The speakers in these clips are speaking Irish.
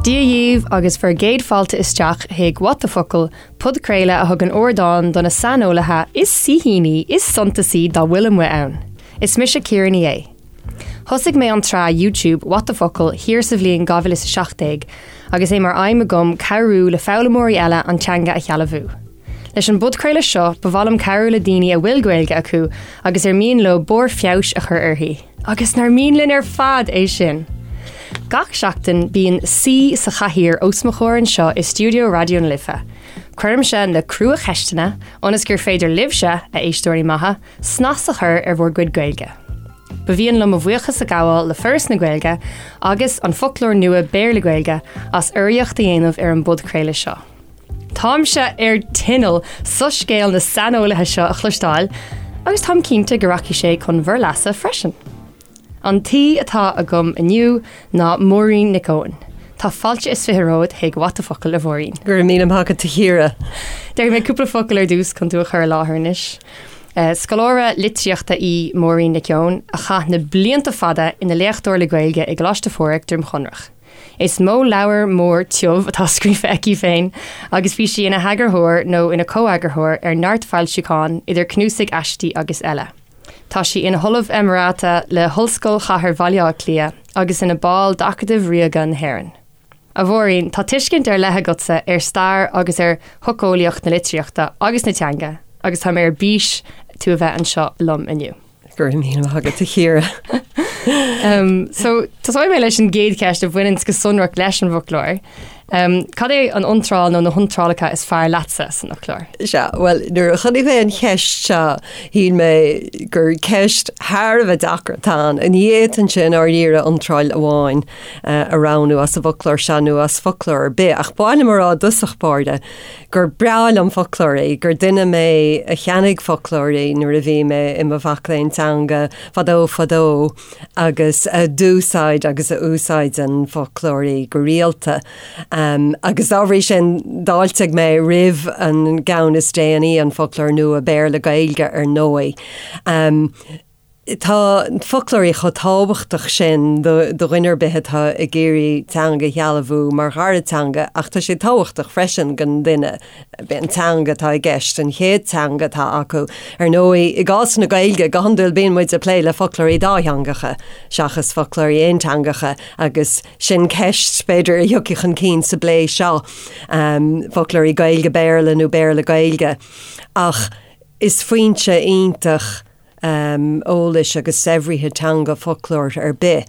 Dia dhaoibh agus bhur gcéad fáilte isteach chuig What the Focal, podchraoladh a thugann ardán do na saineolaithe is saoithíní is suntasaí dá bhfuil amuigh ann. Is mise Ciara Ní É. Thosaigh mé an tsraith YouTube What the Focal thiar sa bhliain 2017 agus é mar aidhm agam cabhrú le foghlaimeoirí eile an teanga a shealbhú. Leis an bpodchraoladh seo, ba mhaith liom cabhrú le daoine a bhfuil Gaeilge acu agus ar mian leo barr feabhais a chur uirthi. Agus nár mian linn ar fad é sin! Gach seachtain, bíonn saoi sa chathaoir os mo chomhair anseo i stiúideo Raidió na Life. Cuirimse na cruacheisteanna ionas gur féidir libhse, a éisteoirí maithe, snas a chur ar bhur gcuid Gaeilge. Ba mhian liom mo bhuíochas a ghabháil le Foras na Gaeilge agus An Foclóir Nua Béarla-Gaeilge as urraíocht a dhéanamh ar an bpodchraoladh seo. Táimse ar tinneall soiscéal na saineolaithe seo a chloisteáil agus táim cinnte go rachaidh sé chun bhur leasa freisin. An t-aoi atá agam inniu ná Máirín Nic Eoin. Tá fáilte is 20 romhat chuig What the Focal, a Mháirín. Go raibh míle maith agat, a Chiara. Déarfaidh mé cúpla focal ar dtús chun tú a chur i láthair anois. Scoláire litríochta í Máirín Nic Eoin a chaith na blianta fada ina léachtóir le Gaeilge i gColáiste Phádraig, Droim Chonrach. Is mó leabhar mór tiubh atá scríofa aici féin agus bhí sí ina heagarthóir nó ina comheagarthóir ar neart foilseachán, idir cnuasaigh aistí agus eile. Tá sí ina hOllamh Emerita le hOllscoil Chathair Bhaile Átha Cliath agus ina ball d'Acadamh Ríoga na hÉireann. A Mháirín, tá tuiscint ar leith agatsa ar stair agus ar shocheolaíocht na litríochta agus na teanga agus tá mé ar bís tú a bheith anseo liom inniu. Go raibh míle maith agat, a Chiara. So, tosóidh mé leis an gcéad cheist a bhaineann go sonrach leis an bhfoclóir. Cad é an iontráil nó na hiontrálacha is fearr leatsa san fhoclóir? Sea, bhuel, nuair a chonaic mé an cheist seo, shíl mé gur ceist thar a bheith deacair atá ann. Ní fhéadfainnse i ndáiríre iontráil amháin a roghnú as an bhfoclóir seo nó as foclóir ar bith, ach ba mhaith liom a rá i dtosach báire gur breá liom foclóirí, gur duine mé a cheannaigh foclóirí nuair a bhí mé i mo mhac léinn teanga fadó fadó agus a d'úsáid agus a úsáideann foclóirí go rialta. Agus dá bhrí sin d'fháiltigh mé roimh an gceann is déanaí, an Foclóir Nua Béarla-Gaeilge ar ndóigh. Tá foclóirí chomh tábhachtach sin do dhuine ar bith atá ag iarraidh teanga a shealbhú mar dhara teanga ach tá sé tábhachtach freisin don duine an teanga atá i gceist, an chéad teanga atá acu. Ar ndóigh, i gcás na Gaeilge, go hiondúil bíonn muid ag plé le foclóirí dátheangacha seachas foclóirí aonteangacha agus sin ceist, b'fhéidir, a thiocfaidh chun cinn sa bplé seo, foclóirí Gaeilge-Béarla nó Béarla-Gaeilge. Ach is foinse iontach eolais agus saibhrithe teanga foclóir ar bith.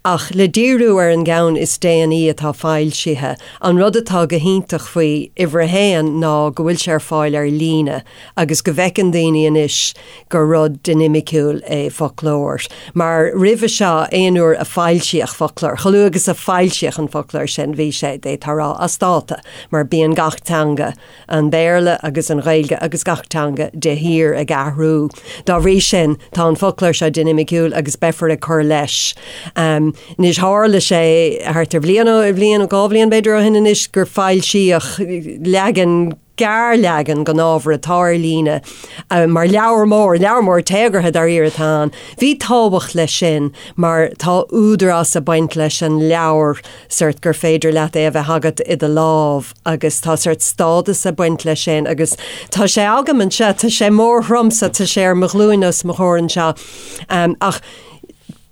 Ach le díriú ar an gceann is déanaí atá foilsithe, an rud atá go hiontach faoi uimhir a haon ná go bhfuil sé ar fáil ar líne agus go bhfeiceann daoine anois gur rud dinimiciúil é foclóir. Mar roimhe seo, aon uair a foilsíodh foclóir, chomh luath agus a foilsíodh an foclóir sin, bhí sé, d'fhéadfá a rá, as dáta, mar bíonn gach teanga an Béarla agus an Ghaeilge agus gach teanga de shíor ag athrú. Dá bhrí sin, tá an foclóir seo dinimiciúil agus beifear ag cur leis. Anois, tharla sé thart ar bhliain, bhliain, 2 bhliain b'fhéidir ó shin anois, gur foilsíodh leagan, gearrleagan den ábhar atá ar líne mar leabhar mór, leabhar mór téagartha dáiríre atá ann. Bhí tábhacht leis sin mar tá údarás ag baint leis an leabhar, sórt gur féidir leat é a bheith agat i do lámh agus tá sórt stádas ag baint leis sin agus tá sé agam anseo, tá sé mór throm so tá sé ar mo ghlúin os mo chomhair anseo. Ach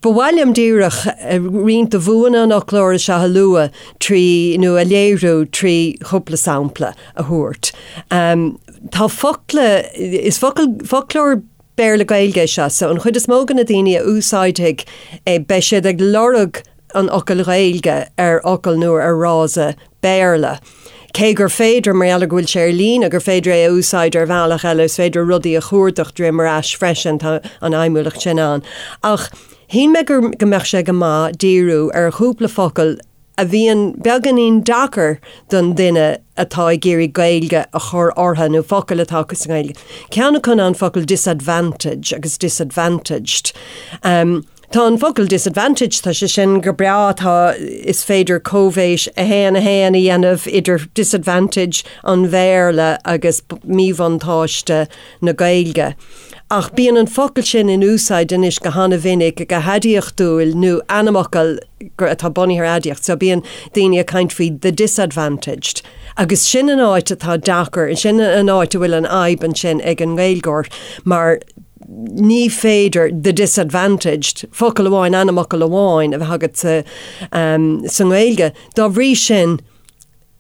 ba mhaith liom díreach roinnt de bhuanna an fhoclóra seo a lua trí, nó a léiriú trí chúpla sampla a thabhairt. Tá focla, is focal, foclóir Béarla-Gaeilge é seo, so an chuid is mó de na daoine a úsáidfidh é beidh siad ag lorg an fhocail Ghaeilge ar fhocal nó ar fhrása Béarla. Cé gur féidir, mar gheall ar go bhfuil sé ar líne, gur féidir é a úsáid ar bhealach eile, is féidir rudaí a chuardach droim ar ais freisin, tá an fheidhmiúlacht sin ann. Ach shíl mé go mbeadh sé go maith díriú ar chúpla focal a bhíonn beagáinín deacair don duine atá ag iarraidh Gaeilge a chur orthu, nó focail atá acu sa nGaeilge. Ceann acu ná an focal disadvantage agus disadvantaged. Tá an focal disadvantage, tá sé sin go breá, tá, is féidir coibhéis 1, 1 a dhéanamh idir disadvantage an Bhéarla agus míbhuntáiste na Gaeilge. Ach bíonn an focal sin in úsáid anois go hana-mhinic go haidiachtúil nó ainmfhocal atá bunaithe ar aidiacht, so bíonn daoine ag caint faoi the disadvantaged. Agus sin an áit atá deacair, sin an áit a bhfuil an fhadhb ansin ag an nGaeilgeoir mar ní féidir the disadvantaged, focal amháin, ainmfhocal amháin a bheith agat sa nGaeilge. Dá bhrí sin,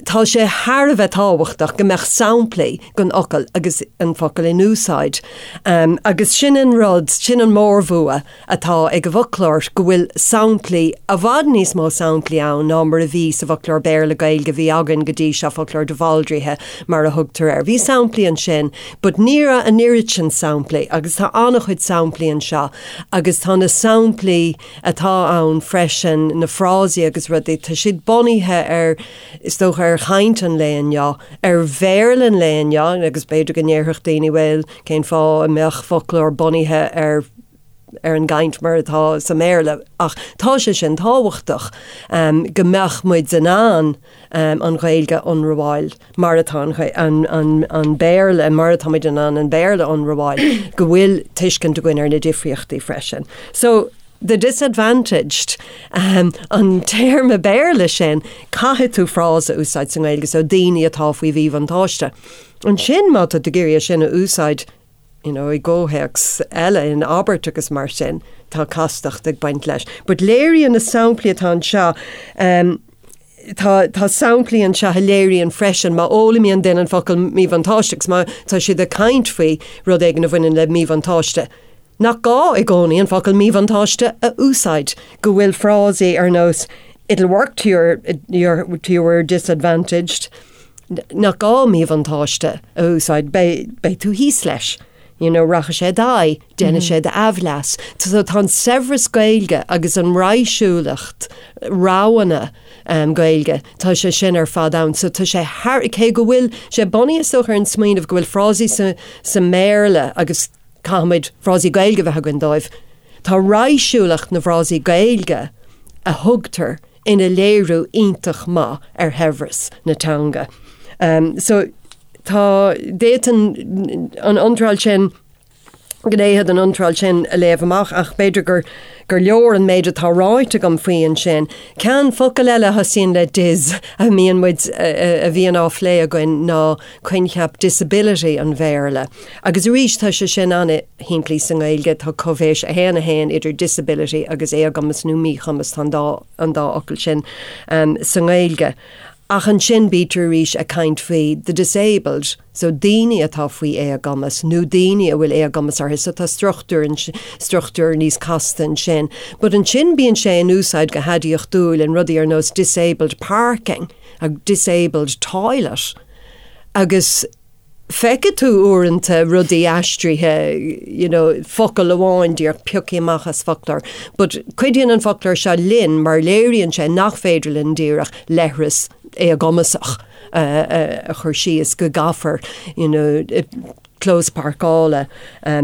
tá sé thar a bheith tábhachtach go mbeadh samplaí den fhocal agus an focal in úsáid. Agus sin an rud, sin an mórbhua atá ag an bhfoclóir, go bhfuil samplaí, i bhfad níos mó samplaí ann ná mar a bhí sa bhfoclóir Béarla-Gaeilge a bhí againn go dtí seo, foclóir de Bhaldraithe mar a thugtar air. Bhí samplaí ansin but ní raibh an oiread sin samplaí agus tá an-chuid samplaí anseo agus tá na samplaí atá ann freisin, na frásaí agus rudaí, tá siad bunaithe ar, is dócha, ar chaint an lae inniu, ar Bhéarla an lae inniu agus b'fhéidir go ndéarfadh daoine bhuel, cén fáth a mbeadh foclóir bunaithe ar ar an gcaint mar atá sa mBéarla ach tá sé sin tábhachtach go mbeadh muid in ann an Ghaeilge a ionramháil mar atá an Béarla, mar atá muid in ann an Béarla a ionramháil, go bhfuil tuiscint againn ar na difríochtaí freisin. So, the disadvantaged, an téarma Béarla sin, caithfidh tú frása a úsáid sa nGaeilge, so daoine atá faoi mhíbhuntáiste. Ansin má tá tú ag iarraidh é sin a úsáid, you know, i gcomhthéacs eile, in abairt agus mar sin, tá castacht ag baint leis. But léiríonn na samplaí atá anseo, um, tá, tá samplaí anseo a léiríonn freisin má fhoghlaimíonn duine an focal míbhuntáiste agus má tá siad ag caint faoi rud éigin a bhaineann le míbhuntáiste, nach gá i gcónaí an focal míbhuntáiste a úsáid, go bhfuil frásaí ar nós it'll work to your, your, to your disadvantaged, nach gá míbhuntáiste a úsáid, beidh tú thíos leis, you know, rachaidh sé i d'aghaidh, déanfaidh sé d'aimhleas. So tá an saibhreas Gaeilge agus an raidhsiúlacht roghanna Gaeilge, tá sé sin ar fad ann. So tá sé thar, cé go bhfuil sé bunaithe is dócha ar an smaoineamh go bhfuil frásaí sa, sa mBéarla agus caithfimid frásaí Gaeilge a bheith againn dóibh, tá raidhsiúlacht na bhfrásaí Gaeilge a thugtar ina léiriú iontach maith ar shaibhreas na teanga. So tá, d'fhéadfainn an iontráil sin, gnéithe den iontráil sin a léamh amach ach b'fhéidir gur gur leor an méid atá ráite agam faoi ansin. Ceann focal eile a thosaíonn le dis a mbíonn muid, a bhíonn á phlé againn ná coincheap disability an Bhéarla. Agus arís tá sé sin an-shimplí sa nGaeilge, tá coibhéis 1, 1 idir disability agus éagumas nó míchumas, tá an dá an dá fhocal sin sa nGaeilge. Ach ansin bítear arís ag caint faoi the disabled, so daoine atá faoi éagumas nó daoine a bhfuil éagumas orthu, so tá struchtúr struchtúr níos casta ansin. But ansin bíonn sé in úsáid go haidiachtúil in rudaí ar nós disabled parking agus disabled toilet. Agus feicfidh tú uaireanta rudaí aistrithe, you know, focal amháin díreach pioctha amach as foclóir. But cuidíonn an foclóir seo linn mar léiríonn sé nach féidir linn díreach leithreas éagumasach a chur síos, go gcaithfear, you know, clós páirceála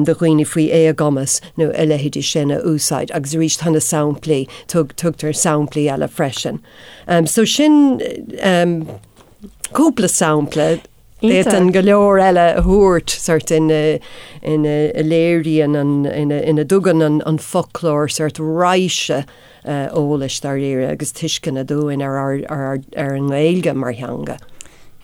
do dhaoine faoi éagumas nó a leithéidí sin a úsáid. Agus arís tá na samplaí, tugtar samplaí eile freisin. So sin cúpla sampla. D'fhéadfainn go leor eile a thabhairt sort ina ina léiríonn an ina ina dtugann an an foclóir sort raidhse eolais dáiríre agus tuisceana dúinn ar ár ar ár ar an nGaeilge mar theanga.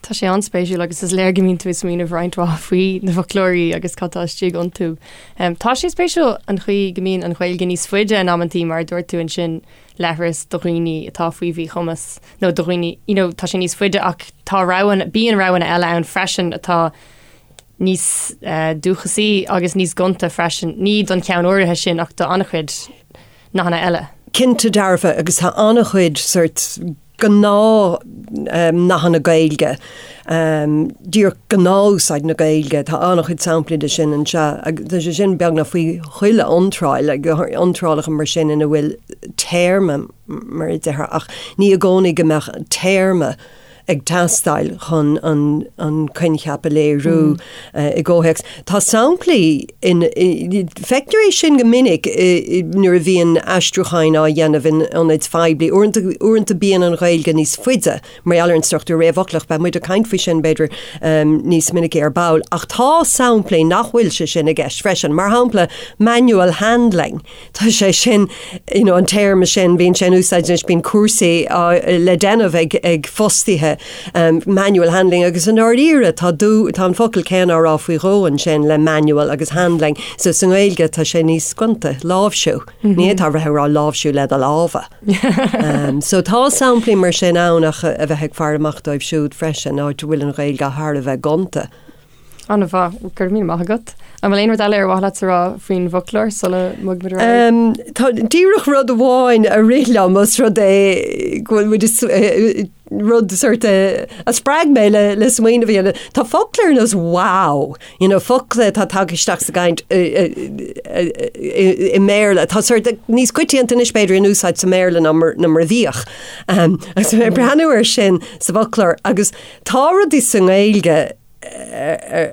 Tá sé an-spéisiúil agus is léir go mbíonn tú ag smaoineamh roinnt mhaith faoi na foclóirí agus cad tá istigh iontu. Tá sé spéisiúil an chaoi go mbíonn an Ghaeilge níos faide in amantaí mar a dúirt tú ansin leithreas do dhaoine atá faoi mhíchumas nó do dhaoine, you know, tá sé níos faide ach tá roghanna, bíonn roghanna eile ann freisin atá níos dúchasaí agus níos gonta freisin, ní don cheann áirithe sin ach do an-chuid nathanna eile. Cinnte dearfa agus tá an-chuid sort gnáth nathanna Gaeilge, díreach gnáthúsáid na Gaeilge, tá an-chuid samplaí de sin anseo agus tá sé sin beagnach faoi chuile iontráil, iontrálacha mar sin ina bhfuil téarma mar a déarfá ach ní i gcónaí go mbeadh téarma. ag teastáil chun an coincheap a léiriú i gcomhthéacs. Tá samplaí in, feictear é sin go minic nuair a bhíonn aistriúcháin á dhéanamh in ionaid phoiblí. Uaireanta, uaireanta bíonn an Ghaeilge níos faide mar gheall ar an struchtúr réamhfhoclach, beidh muid ag caint faoi sin, b'fhéidir, níos minice ar ball. Ach tá samplaí nach bhfuil sé sin i gceist freisin. Mar shampla, manual handling. Tá sé sin, you know, an téarma sin, bíonn sé in úsáid anois, bíonn cúrsaí á, le déanamh ag, ag fostaithe, um, manual handling agus i ndáiríre tá dú, tá an focal céanna á rá faoi dhó ansin le manual agus handling. So sa nGaeilge tá sé níos gonta, láimhsiú. Ní fhéadfá a bheith ag rá láimhsiú le do lámha. Um, so tá samplaí mar sin ann ach a bheith ag faire amach dóibh siúd freisin, áit a bhfuil an Ghaeilge thar a bheith gonta. An-mhaith, go raibh míle maith agat. An bhfuil aon rud eile ar mhaith leat a rá faoin bhfoclóir sula mbogfaimid ar aghaidh? Tá díreach rud amháin a rith liom os rud é go bhfuil muid rud sort a spreag mé le le smaoineamh a dhéanamh. Tá focla ar nós wow, you know, focla atá tagtha isteach sa gcaint i mBéarla. Tá sort níos coitianta anois b'fhéidir in úsáid sa mBéarla ná mar ná mar a bhíodh. Agus mé ag breathnú air sin sa bhfoclóir agus tá rudaí sa nGaeilge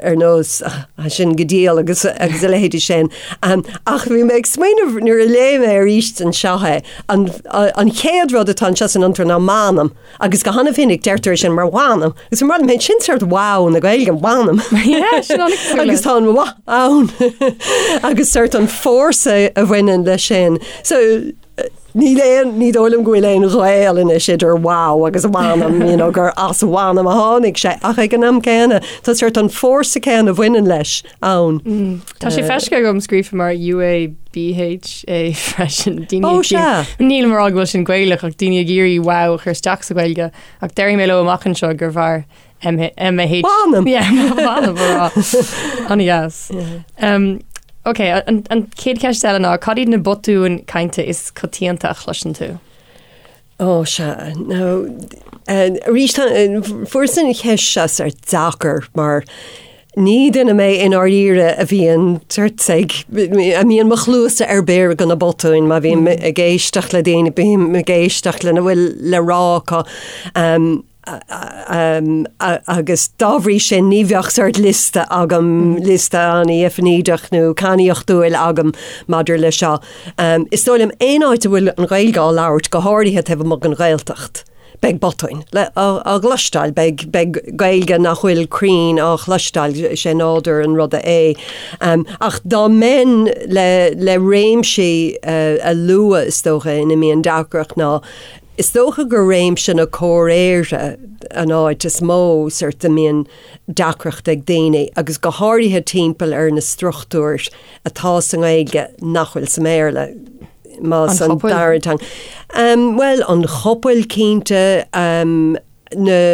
ar nós sin go diail agus agus a leithéidí sin. Ach bhí mé ag smaoineamh nuair a léigh mé arís anseo é, an an chéad rud atá anseo san iontráil ná m'anam agus go han-mhinic deirtear é sin mar mh'anam agus mar mé sin sort wow na Gaeilge mh'anam. Agus tá an mh ann agus sort an fórsa a bhaineann leis sin. So Níl aon, ní dóigh liom go bhfuil aon ghaol anois idir wow agus mh'anam, you know, gur as mh'anam a tháinig sé, ach ag an am céanna, tá sort an fórsa céanna a bhaineann leis ann. Tá sé feicthe agam scríofa mar UABHA freisin. Daoine Ó, ag sea. Nílim ag rá go bhfuil sin Gaelach ach daoine ag iarraidh wow a chur isteach sa Ghaeilge ach déarfaidh mé leo amach anseo gurbh fhearr MH. Mh'anam! Yeah, mh'anam a rá. An-dheas. Um, ok, an, an chéad cheist eile ná, cad iad na botúin cainte is coitianta a chloiseann tú? Ó, sea. Now, eh, arís, tá, eh, fuaireas an cheist seo sort deacair mar ní duine mé i ndáiríre a bhíonn sort ag, a mbíonn mo chluasa ar bior do na botúin, má bhím ag éisteacht le daoine, bím ag éisteacht lena bhfuil le rá acu. Um, agus dá bhrí sin ní bheadh sort liosta agam, liosta an-deifnídeach nó cainníochtúil agam maidir le seo. Is dóigh liom aon áit a bhfuil an Ghaeilge á labhairt, go háirithe taobh amuigh den Ghaeltacht, beidh botúin á gcloisteáil, beidh beidh Gaeilge nach bhfuil cruinn á chloisteáil, is é nádúr an ruda é. Ach dá mbeinn le le réimsí a lua is dócha ina mbíonn deacracht ná Is dócha gur réimse na comhréire an áit is mó sort a mbíonn deacracht ag daoine, agus go háirithe timpeall ar na struchtúir atá sa nGaeilge nach bhfuil sa mBéarla, más An an dara teanga. Bhuel, an chopail cinnte, na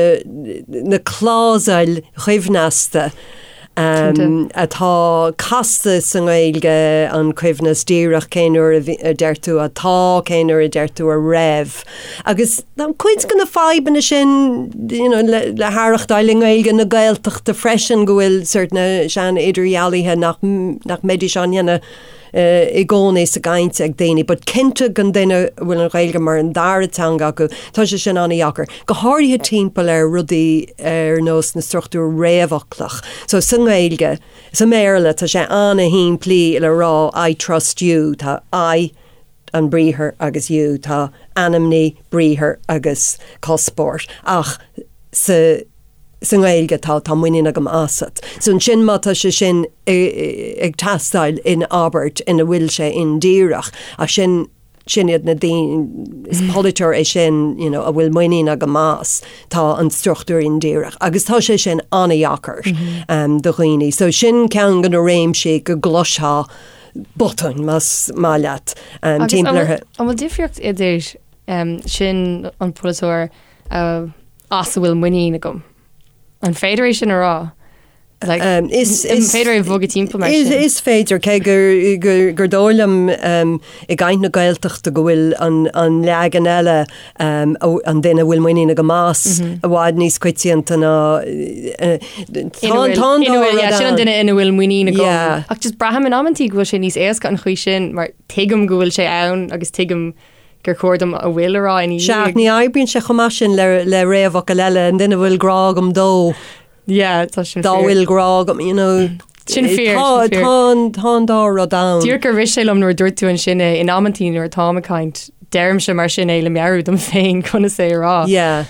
na clásail choibhneasta atá casta sa nGaeilge, an coibhneas díreach, cén uair a deir tú atá, cén uair a deir tú a raibh. Agus tá cuid de na fadhbanna sin you know, le, le haireachtáil i nGaeilge na Gaeltachta freisin go bhfuil sort na sean-idirdhealuithe nach, nach mbeidís á ndéanamh i gcónaí sa gcaint ag daoine, but cinnte don duine a bhfuil an Ghaeilge mar an dara teanga acu, tá sé sin an-dheacair, go háirithe timpeall ar rudaí ar nós na struchtúr réamhfhoclach. So sa nGaeilge, sa mBéarla, tá sé an-shimplí le rá I trust you, tá I, an briathar agus you, tá ainmní, briathar agus cuspóir, ach sa. sa nGaeilge tá, tá muinín agam asat. So ansin má tá sé sin ag teastáil in abairt ina bhfuil sé indíreach, ach sin, sin iad na daoine, is polaiteoir é sin, you know, a bhfuil muinín agam as, tá an struchtúr indíreach. Agus tá sé sin an-dheacair um, do dhaoine. So sin ceann de na réimsí go gcloisfeá botúin, más maith leat, um, timpeall orthu. An bhfuil difríocht idir um, sin an polaiteoir uh, as a bhfuil muinín agam. An féidir é sin a rá? Like, um, is, is féidir é bhogadh timpeall mar sin? Is féidir, cé gur, gur, gur dóigh liom um, i gcaint na Gaeltachta go bhfuil an, an leagan eile um, an duine a bhfuil muinín agam as mm -hmm. i bhfad níos coitianta ná uh, sin an duine ina bhfuil muinín agam. Yeah. Ach just braithim in amantaí go bhfuil sé níos éasca an chaoi sin mar tuigim go bhfuil sé ann agus tuigim gur chóir dom a bhfuil a rá ina dhiaidh. Sea, ach ní oibríonn sé chomh maith sin le le réamhfhocal eile, an duine a bhfuil grá agam dó. Yeah, tá sin fíor. Dá bhfuil grá agam, you know. Sin fíor, sin fíor. Tá an, tá an dá rud ann. Díreach gur rith sé liom nuair a dúirt tú ansin é, in amantaí nuair atáim ag caint, deirimse mar sin é le meabhrú dom féin conas é a rá. Yeah,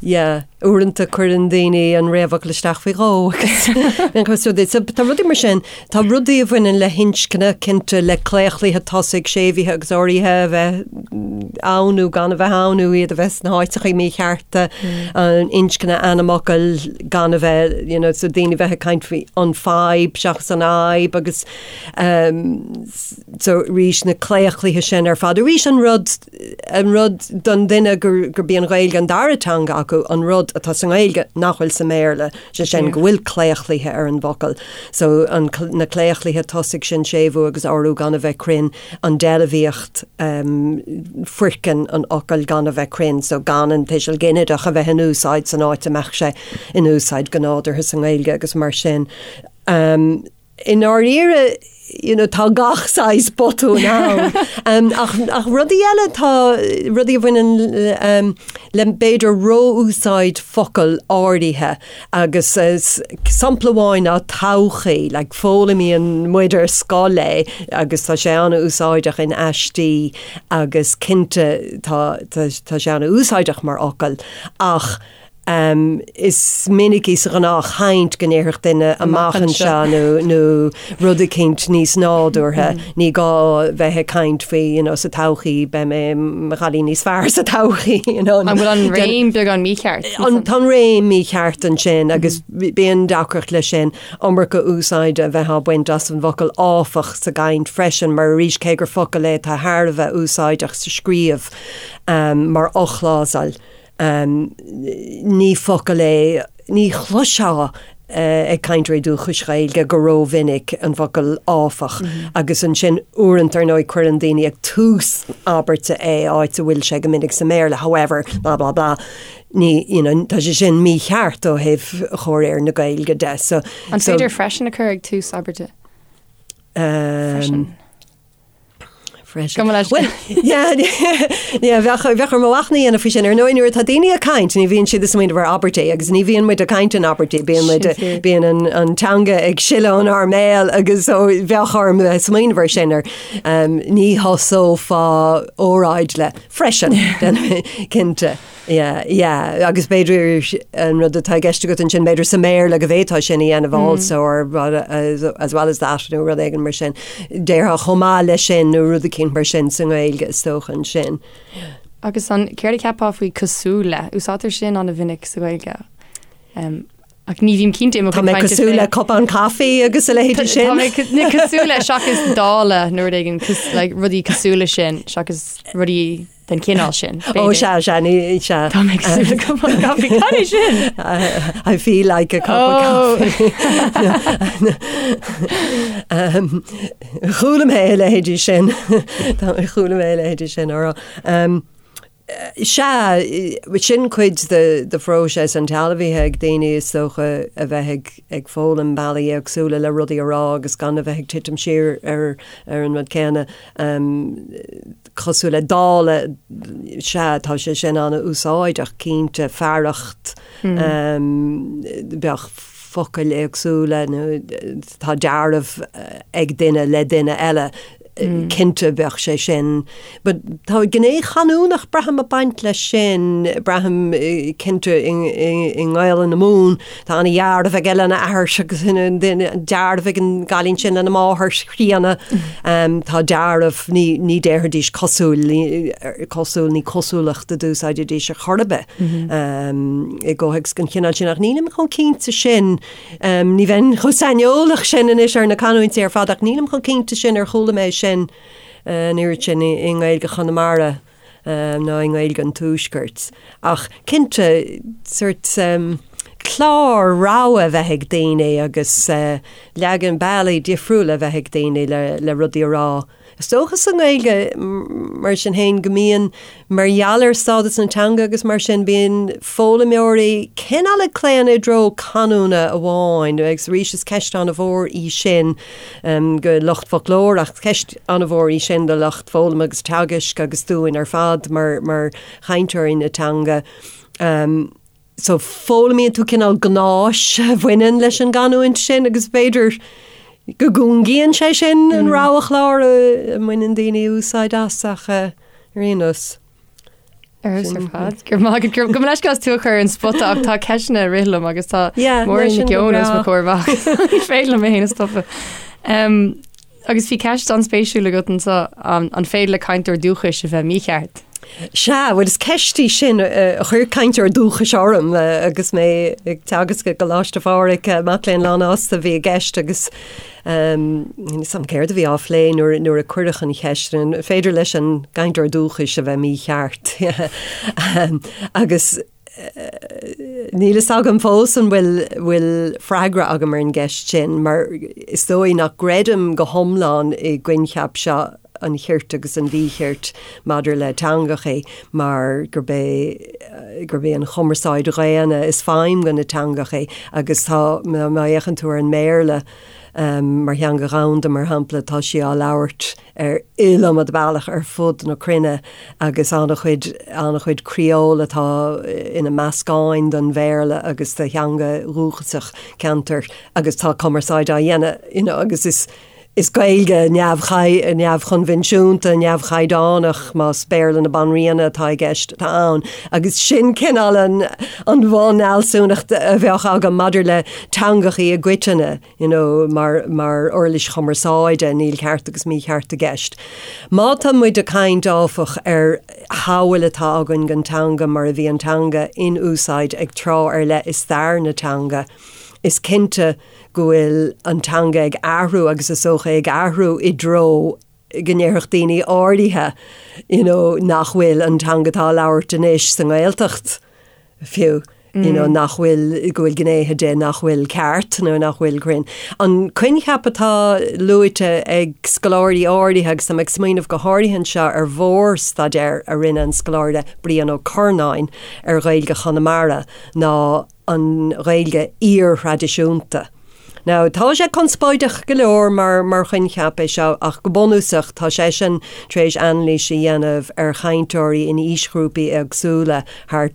yeah. Uaireanta cuireann daoine an réamhfhocal isteach faoi dhó agus so tá rudaí mar sin, tá rudaí a bhaineann le hinscne, cinnte, le claochluithe tosaigh, séimhithe agus uraithe a bheith ann nó gan a bheith ann nó iad a bheith sna háiteacha míchearta, an inscne ainmfhocail gan a bheith, you know, so daoine a bheith ag caint faoi an fadhb seachas an fhadhb agus so arís na claochluithe sin ar fad. Arís an rud an rud don duine gurb í an Ghaeilge an dara teanga acu, an rud atá sa nGaeilge nach bhfuil sa mBéarla, sé sin go bhfuil claochluithe ar an bhfocal. So an, na claochluithe tosaigh sin, séimhiú agus urú gan a bheith cruinn, an deilbhíocht, foirceann an fhocail gan a bheith cruinn, so gan an tuiseal ginideach a bheith in úsáid san áit a mbeadh sé in úsáid go nádúrtha sa nGaeilge agus mar sin. I ndáiríre, you know, tá gach saghas botún ann. um, ach, ach rudaí eile tá rudaí a bhaineann um, le b'fhéidir ró-úsáid focal áirithe agus uh, sampla amháin ná todhchaí, like, foghlaimíonn muid ar scoil é agus tá sé an-úsáideach in aistí agus cinnte tá, tá, tá sé an-úsáideach mar fhocal ach Is minicí sa ghnáthchaint go ndéarfadh duine amach anseo nó nó rud eicínt níos nádúrtha. Ní gá bheith ag caint faoi you know sa todhchaí beidh mé i mo chailín níos fearr sa todhchaí you know. An bhfuil an réim beagán mícheart? Tá an réim mícheart ansin agus bíonn deacracht leis sin. Iomarca úsáide a bheith á baint as an bhfocal áfach sa gcaint freisin mar arís cé gur focal é atá thar a bheith úsáideach sa scríobh mar fhochlásal. Ní focal é, ní chloisfeá ag cainteoirí dúchais Ghaeilge go rómhinic an focal áfach agus ansin uaireanta ar ndóigh cuireann daoine ag tús abairte é áit a bhfuil sé go minic sa mBéarla however blah blah blah ní you know tá sé sin mícheart ó thaobh chomhréir na Gaeilge de so An féidir freisin a chur ag tús abairte? Freisin. Freisin. Bhuel, yeah, yeah, bheadh, bheadh orm machnamh a dhéanamh faoi sin. Ar ndóigh, nuair atá daoine ag caint, ní bhíonn siad ag smaoineamh ar abairtí agus ní bhíonn muid ag caint in abairtí, bíonn muid, bíonn an, an teanga ag sileadh ónár mbéal agus so bheadh orm bheith ag smaoineamh ar sin ar um, ní thosófá óráid le freisin, cinnte. Yeah, yeah, agus b'fhéidir an rud atá i gceist agat ansin, b'fhéidir sa mBéarla go bhféadfá sin a dhéanamh also or as, as well as that nó rud éigin mar sin. Déarfá chomh maith leis sin nó rud eicínt mar sin sa nGaeilge is dócha ansin. Agus an céard a cheapfá faoi cosúil le? Úsáidtear sin an-mhinic sa Ghaeilge. Um, ach ní bhím cinnte i mo Tá mé cosúil le cupán caife agus a leithéidí sin. Tá mé cosúil le seachas dála nó rud éigin like, rudaí cosúil le sin seachas rudaí den chineál sin. Ó sea, sea, ní, sea. Tá mé cosúil le cupán caife. Cad é sin? I feel like a cup of coffee. Um, Chuala mé a leithéidí sin. Tá chuala mé a leithéidí sin á rá. Um, Sea, sin cuid de de phróiseas an tsealbhaithe ag daoine is dócha a bheith ag ag foghlaim bealaí éagsúla le rudaí a rá agus gan a bheith ag titim siar ar ar an rud céanna. Um, cosúil le dála, sea, tá sé sin an-úsáideach, cinnte, fearacht, bheadh focail éagsúla nó tá dealramh ag duine le duine eile, cinnte bheadh sé sin. But tá gné chanúnach, braithim, ag baint leis sin, braithim, cinnte, i nGaelainn na Mumhan, tá ana-dhealramh aige lena athair agus dealramh ag an gcailín sin lena máthair chríonna. Tá dealramh, ní, ní déarfaidís cosúil, cosúil, ní cosúlacht a d'úsáidfidís ar chor ar bith i gcomhthéacs den chineál sin. Ach nílim chomh cinnte sin, ní bheinn chomh saineolach sin anois ar na canúintí ar fad ach nílim chomh cinnte sin ar chuala mé sin an oiread sin i nGaeilge Chonamara. ná i nGaeilge an Tuaiscirt. Ach cinnte, sórt clár rogha a bheith ag daoine agus leagan bealaí difriúla a bheith ag daoine le rudaí a rá. Is dócha sa nGaeilge, mar sin féin, go mbíonn, mar gheall ar stádas na teanga agus mar sin, bíonn foghlaimeoirí cineál ag claonadh i dtreo canúna amháin agus arís is ceist an-mhór í sin go lucht foclóireachta, ceist an-mhór í sin do lucht foghlama agus teagaisc agus dúinn ar fad mar mar chainteoirí na teanga. So foghlaimíonn tú cineál gnáis a bhaineann leis an gcanúint sin agus b'fhéidir go gcúngaíonn sé sin an roghchlár a mbaineann daoine úsáid as ach ar aon nós. Ar fheabhas ar fad. Go raibh maith agat. Gabh mo leithscéal as tú a chur ar an spota ach tá ceisteanna ag rith liom agus tá Máire Nic Eoin os mo chomhair amach. Ní féidir liom mé féin a stopadh. Agus bhí ceist an-spéisiúil agat anseo, an féidir le cainteoir dúchais a bheith mícheart? Sea, bhuel is ceist í sin a chuir cainteoir dúchais orm agus mé ag teagasc i gColáiste Phádraig, mac léinn lánfhásta a bhí i gceist agus níl 'fhios a'm céard a bhí á phlé nuair nuair a cuireadh an cheist, an féidir leis an gcainteoir dúchais a bheith mícheart? Agus Níl fhios agam fós an bhfuil bhfuil freagra agam ar an gceist sin, mar is dóigh nach gcreidim go hiomlán i gcoincheap seo an chirt agus an mhíchirt maidir le teangachaí, mar gurb é gurb é an chumarsáid dhaonna is feidhm do na teangachaí agus tá má fhéachann tú ar an mBéarla mar theanga dhomhanda, mar shampla, tá sí á labhairt ar iliomad bealach ar fud na cruinne agus an-chuid, an-chuid criól atá ina meascáin den Bhéarla agus de theanga dhúchasach ceantair agus tá cumarsáid á dhéanamh you know agus is, is Gaeilge neamhchoinbhinsiúnta, neamhchaighdeánach, más Béarla na Banríona atá i gceist, atá ann agus sin cineál an, an bhunfhealsúnacht a bheadh agam maidir le teangachaí i gcoitinne. you know, mar, mar uirlis chumarsáide, níl ceart agus mícheart i gceist. Má tá muid ag caint, áfach, ar shamhail atá againn den teanga mar a bhí an teanga in úsáid ag tráth ar leith i stair na teanga, is cinnte go bhfuil an teanga ag athrú agus is dócha ag athrú i dtreo go ndéarfadh daoine áirithe you know, nach bhfuil an teanga atá á labhairt anois sa nGaeltacht fiú, you know, nach bhfuil, go bhfuil gnéithe de nach bhfuil ceart nó nach bhfuil cruinn. An coincheap atá luaite ag scoláirí áirithe, agus tá mé ag smaoineamh go háirithe anseo ar mhórstaidéar a rinne an scoláire Brian Ó Curnáin ar Ghaeilge Chonamara, ná an Ghaeilge iar-thraidisiúnta. Now, tá sé conspóideach go leor mar mar choincheap é seo ach go bunúsach tá seisean tar éis anailís a dhéanamh ar chainteoirí in aoisghrúpaí éagsúla thar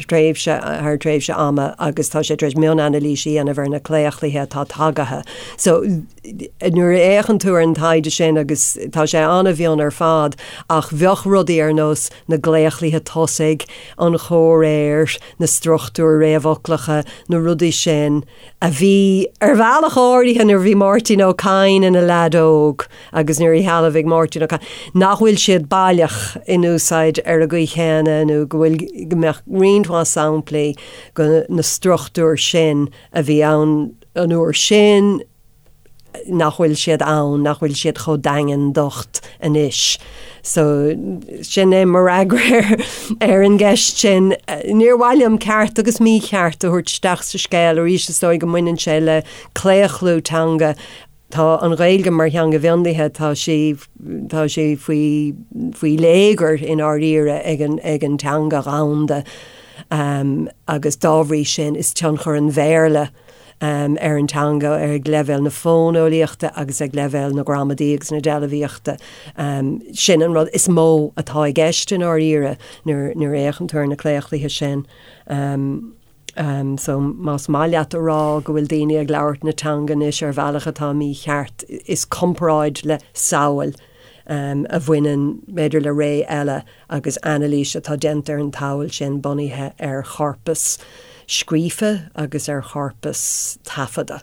tréimhse thar tréimhse ama agus tá sé tar éis mionanailís a dhéanamh ar na claochluithe atá tagaithe. So, nuair a fhéachann tú ar an taighde sin agus tá sé an-mhion ar fad ach bheadh rudaí ar nós na gclaochluithe tosaigh, an chomhréir, na struchtúir réamhfhoclacha, na rudaí sin a bhí ar bhealach áirithe nuair a bhí Máirtín Ó Cadhain ina leaid óg agus nuair a shealbhaigh Máirtín Ó Cadhain, nach bhfuil siad baileach in úsáid ar an gcaoi chéanna nó go bhfuil, go mbeadh roinnt mhaith samplaí de na struchtúir sin a bhí ann an uair sin, nach bhfuil siad ann, nach bhfuil siad chomh daingean docht anois. So, sin é mo fhreagra ar an gceist sin. Níor mhaith liom ceart agus mícheart a thabhairt isteach sa scéal arís, is dóigh go mbaineann sé le claochlú teanga. Tá an Ghaeilge mar theanga mhionlaithe, tá sí, tá sí faoi, faoi léigear i ndáiríre ag an, ag an teanga dhomhanda agus dá bhrí sin is tionchar an Bhéarla ar an teanga ag leibhéal na fóineolaíochta agus ag leibhéal na gramadaí agus na deilbhíochta. Sin an rud is mó atá i gceist i ndáiríre nuair a fhéachann tú ar na claochluithe sin. So más maith leat a rá go bhfuil daoine ag labhairt na teanga anois ar bhealach atá mícheart, is comparáid le samhail a bhaineann b'fhéidir le ré eile agus anailís atá déanta ar an tsamhail sin bunaithe ar chorpas scríofa agus ar chorpas taifeadta.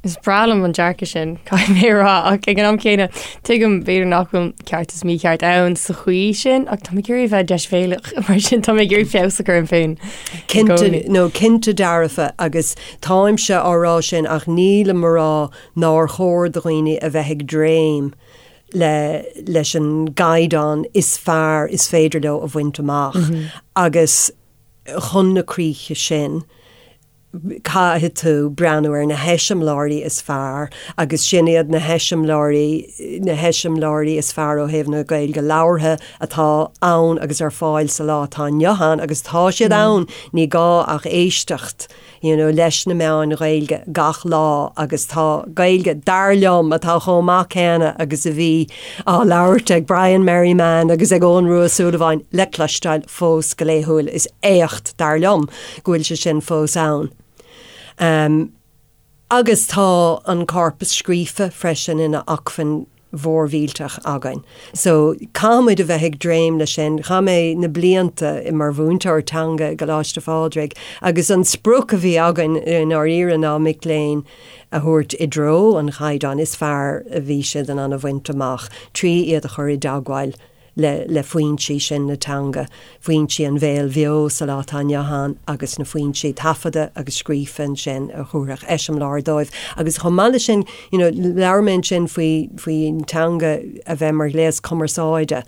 Is breá liom an dearcadh sin, caithfidh mé a rá, ach ag an am céanna, tuigim b'fhéidir nach bhfuil ceart is mícheart ann sa chaoi sin, ach tá mé ag iarraidh a bheith deisbhéalach, mar sin tá mé ag iarraidh feabhas a chur orm féin i Cinnte, gcónaí. nó cinnte dearfa, agus táimse á rá sin ach nílim a rá nár chóir do dhaoine a bheith ag dréim le leis an gcaighdeán is fearr is féidir leo a bhaint amach agus chun na críche sin. Caithfidh tú breathnú ar na heiseamláirí is fearr agus sin iad na heiseamláirí, na heiseamláirí is fearr ó thaobh na Gaeilge labhartha atá ann agus ar fáil sa lá atá inniu ann agus tá siad ann, ní gá ach éisteacht you know leis na meáin Ghaeilge gach lá agus tá Gaeilge, dar liom, atá chomh maith céanna agus a bhí á labhairt ag Brian Merriman agus ag Eoghan Rua Ó Súilleabháin le cloisteáil fós go laethúil. Is éacht, dar liom, go bhfuil sé sin fós ann. Agus tá an corpas scríofa freisin ina acmhainn mhór mhillteach againn. So, caithfidh muid a bheith ag dréim leis sin. Chaith mé na blianta mar mhúinteoir teanga i gColáiste Phádraig agus an sprioc a bhí againn i ndáiríre ná mic léinn a thabhairt i dtreo an chaighdeáin is fearr a bhí siad in ann a bhaint amach trí iad a chur i dteagmháil le le foinsí sin na teanga, foinsí an bhéil bheo sa lá atá inniu ann agus na foinsí taifeadta agus scríofa ansin a thabharfadh eiseamláir dóibh. Agus chomh maith leis sin, you know, labhair mé ansin faoi faoin teanga a bheith mar ghléas cumarsáide,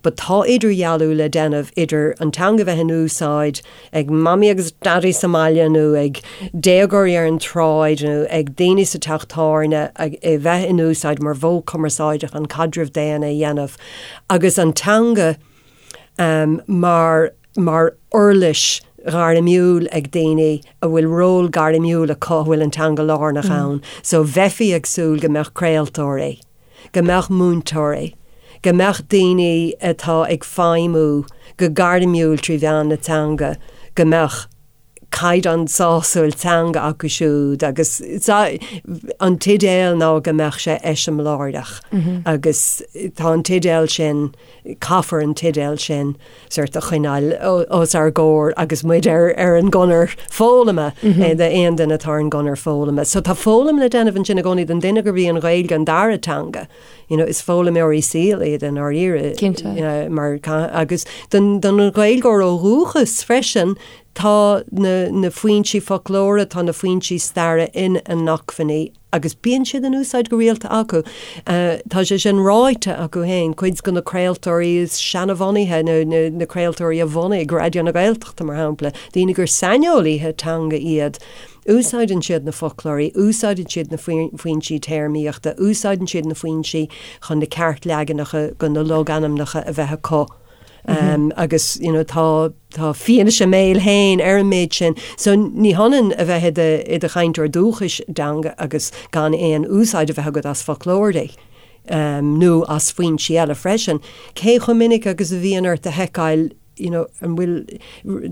but tá idirdhealú le déanamh idir an teanga a bheith in úsáid ag mamaí agus daidí sa mbaile nó ag déagóirí ar an tsráid nó ag daoine sa teach tábhairne a bheith in úsáid mar mhodh cumarsáide chun caidreamh daonna a dhéanamh agus an teanga mar mar uirlis ghairmiúil ag daoine a bhfuil ról gairmiúil acu a bhfuil an teanga lárnach ann. So bheifí ag súil go mbeadh craoltóirí. go mbeadh múinteoirí, go mbeadh daoine atá ag feidhmiú go gairmiúil trí mheán na teanga, go mbeadh caighdeán sásúil teanga acu siúd agus an t-idéal ná go mbeadh sé eiseamláireach agus tá an t-idéal sin, caithfear an t-idéal sin sort a choinneáil os ár gcomhair agus muid ar ar an gconair foghlama d'aon duine atá ar an gconair foghlama. So tá foghlaim le déanamh ansin i gcónaí don duine gurb í an Ghaeilge an dara teanga. You know, is foghlaimeoirí saoil iad i ndáiríre. Cinnte. Mar agus don don Ghaeilgeoir ó dhúchas freisin tá na na foinsí foclóra, tá na foinsí staire ina n-acmhainní agus bíonn siad in úsáid go rialta acu. Tá sé sin ráite acu féin, cuid de na craoltóirí is seanbhunaithe, nó na craoltóirí a bhunaigh Raidió na Gaeltachta, mar shampla, daoine gur saineolaithe teanga iad, úsáideann siad na foclóirí, úsáideann siad na foinsí téarmaíochta, úsáideann siad na foinsí chun na ceartleaganacha de na logainmneacha a bheith acu. Agus you know tá tá fianaise a mbéil féin ar an méid sin. So ní hionann a bheith i do i do chainteoir dúchais teanga agus gan aon úsáid a bheith agat as foclóirí nó as foinsí eile freisin. Cé chomh minic agus a bhíonn ort a sheiceáil you know an bhfuil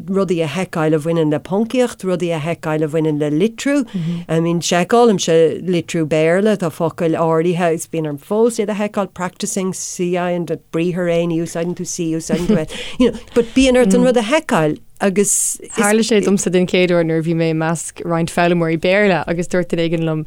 rudaí a sheiceáil a bhaineann le poncaíocht, rudaí a sheiceáil a bhaineann le litriú. I mean seiceálaimse litriú Béarla, tá focail áirithe is bíonn orm fós iad a sheiceáil, practising, C I an briathar é, ní úsáideann tú C, úsáideann tú S, you know, but bíonn ort an rud a sheiceáil agus Tharla sé domsa den chéad uair nuair a bhí mé i measc roinnt foghlaimeoirí Béarla agus dúirt duine éigin liom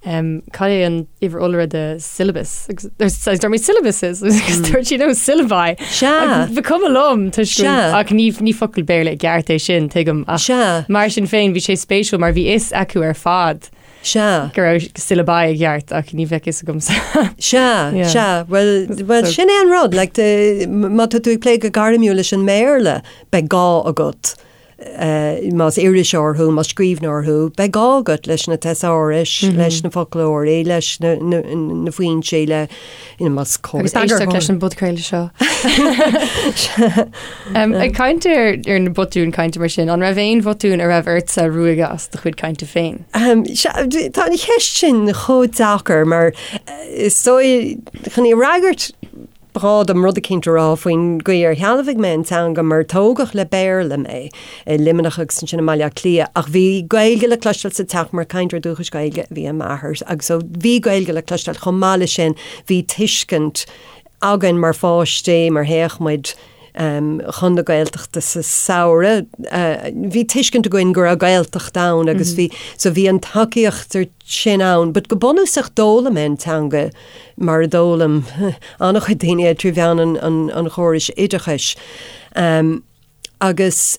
um, cad é an uimhir iolra de syllabus? Agus dúirt mé syllabuses agus dúirt sí no syllabi. Sea. Ba chuma liom toisc Sea. ach ní ní focal Béarla i gceart é sin tuigim ach Sea. mar sin féin bhí sé spéisiúil mar bhí fhios acu ar fad Sea. go raibh syllabi i gceart ach ní bheadh fhios agamsa. Sea, Yeah. sea, well, well So- sin é an rud, like, de, má tá tú ag plé go gairmiúil leis an mBéarla, beidh gá agat Más iriseoir thú, más scríbhneoir thú, beidh gá agat leis na teasárais, leis na foclóirí, leis na foinsí, le, you know, más Agus éisteacht leis an bpodchraoladh seo. Ag caint ar ar na botúin cainte mar sin, an raibh aon bhotún a raibh ortsa ruaigeadh as do chuid cainte féin? Tá an cheist sin chomh deacair mar is dóigh chun í a fhreagairt, Ba ghá dom rud eicínt a rá faoin gcaoi ar shealbhaigh mé an teanga mar tógadh le Béarla mé i Luimneach agus ansin i mBaile Átha Cliath ach bhí Gaeilge le cloisteáil sa teach mar cainteoir dúchais Gaeilge a bhí i m'athair agus so bhí Gaeilge le cloisteáil chomh maith leis sin bhí tuiscint againn mar pháistí mar théadh muid chun na Gaeltachta sa samhradh bhí tuiscint againn go raibh Gaeltacht ann agus bhí so bhí an tacaíocht sin ann, but go bunúsach d'fhoghlaim mé an teanga mar a d'fhoghlaim an-chuid daoine é trí mheán an chórais oideachais. Agus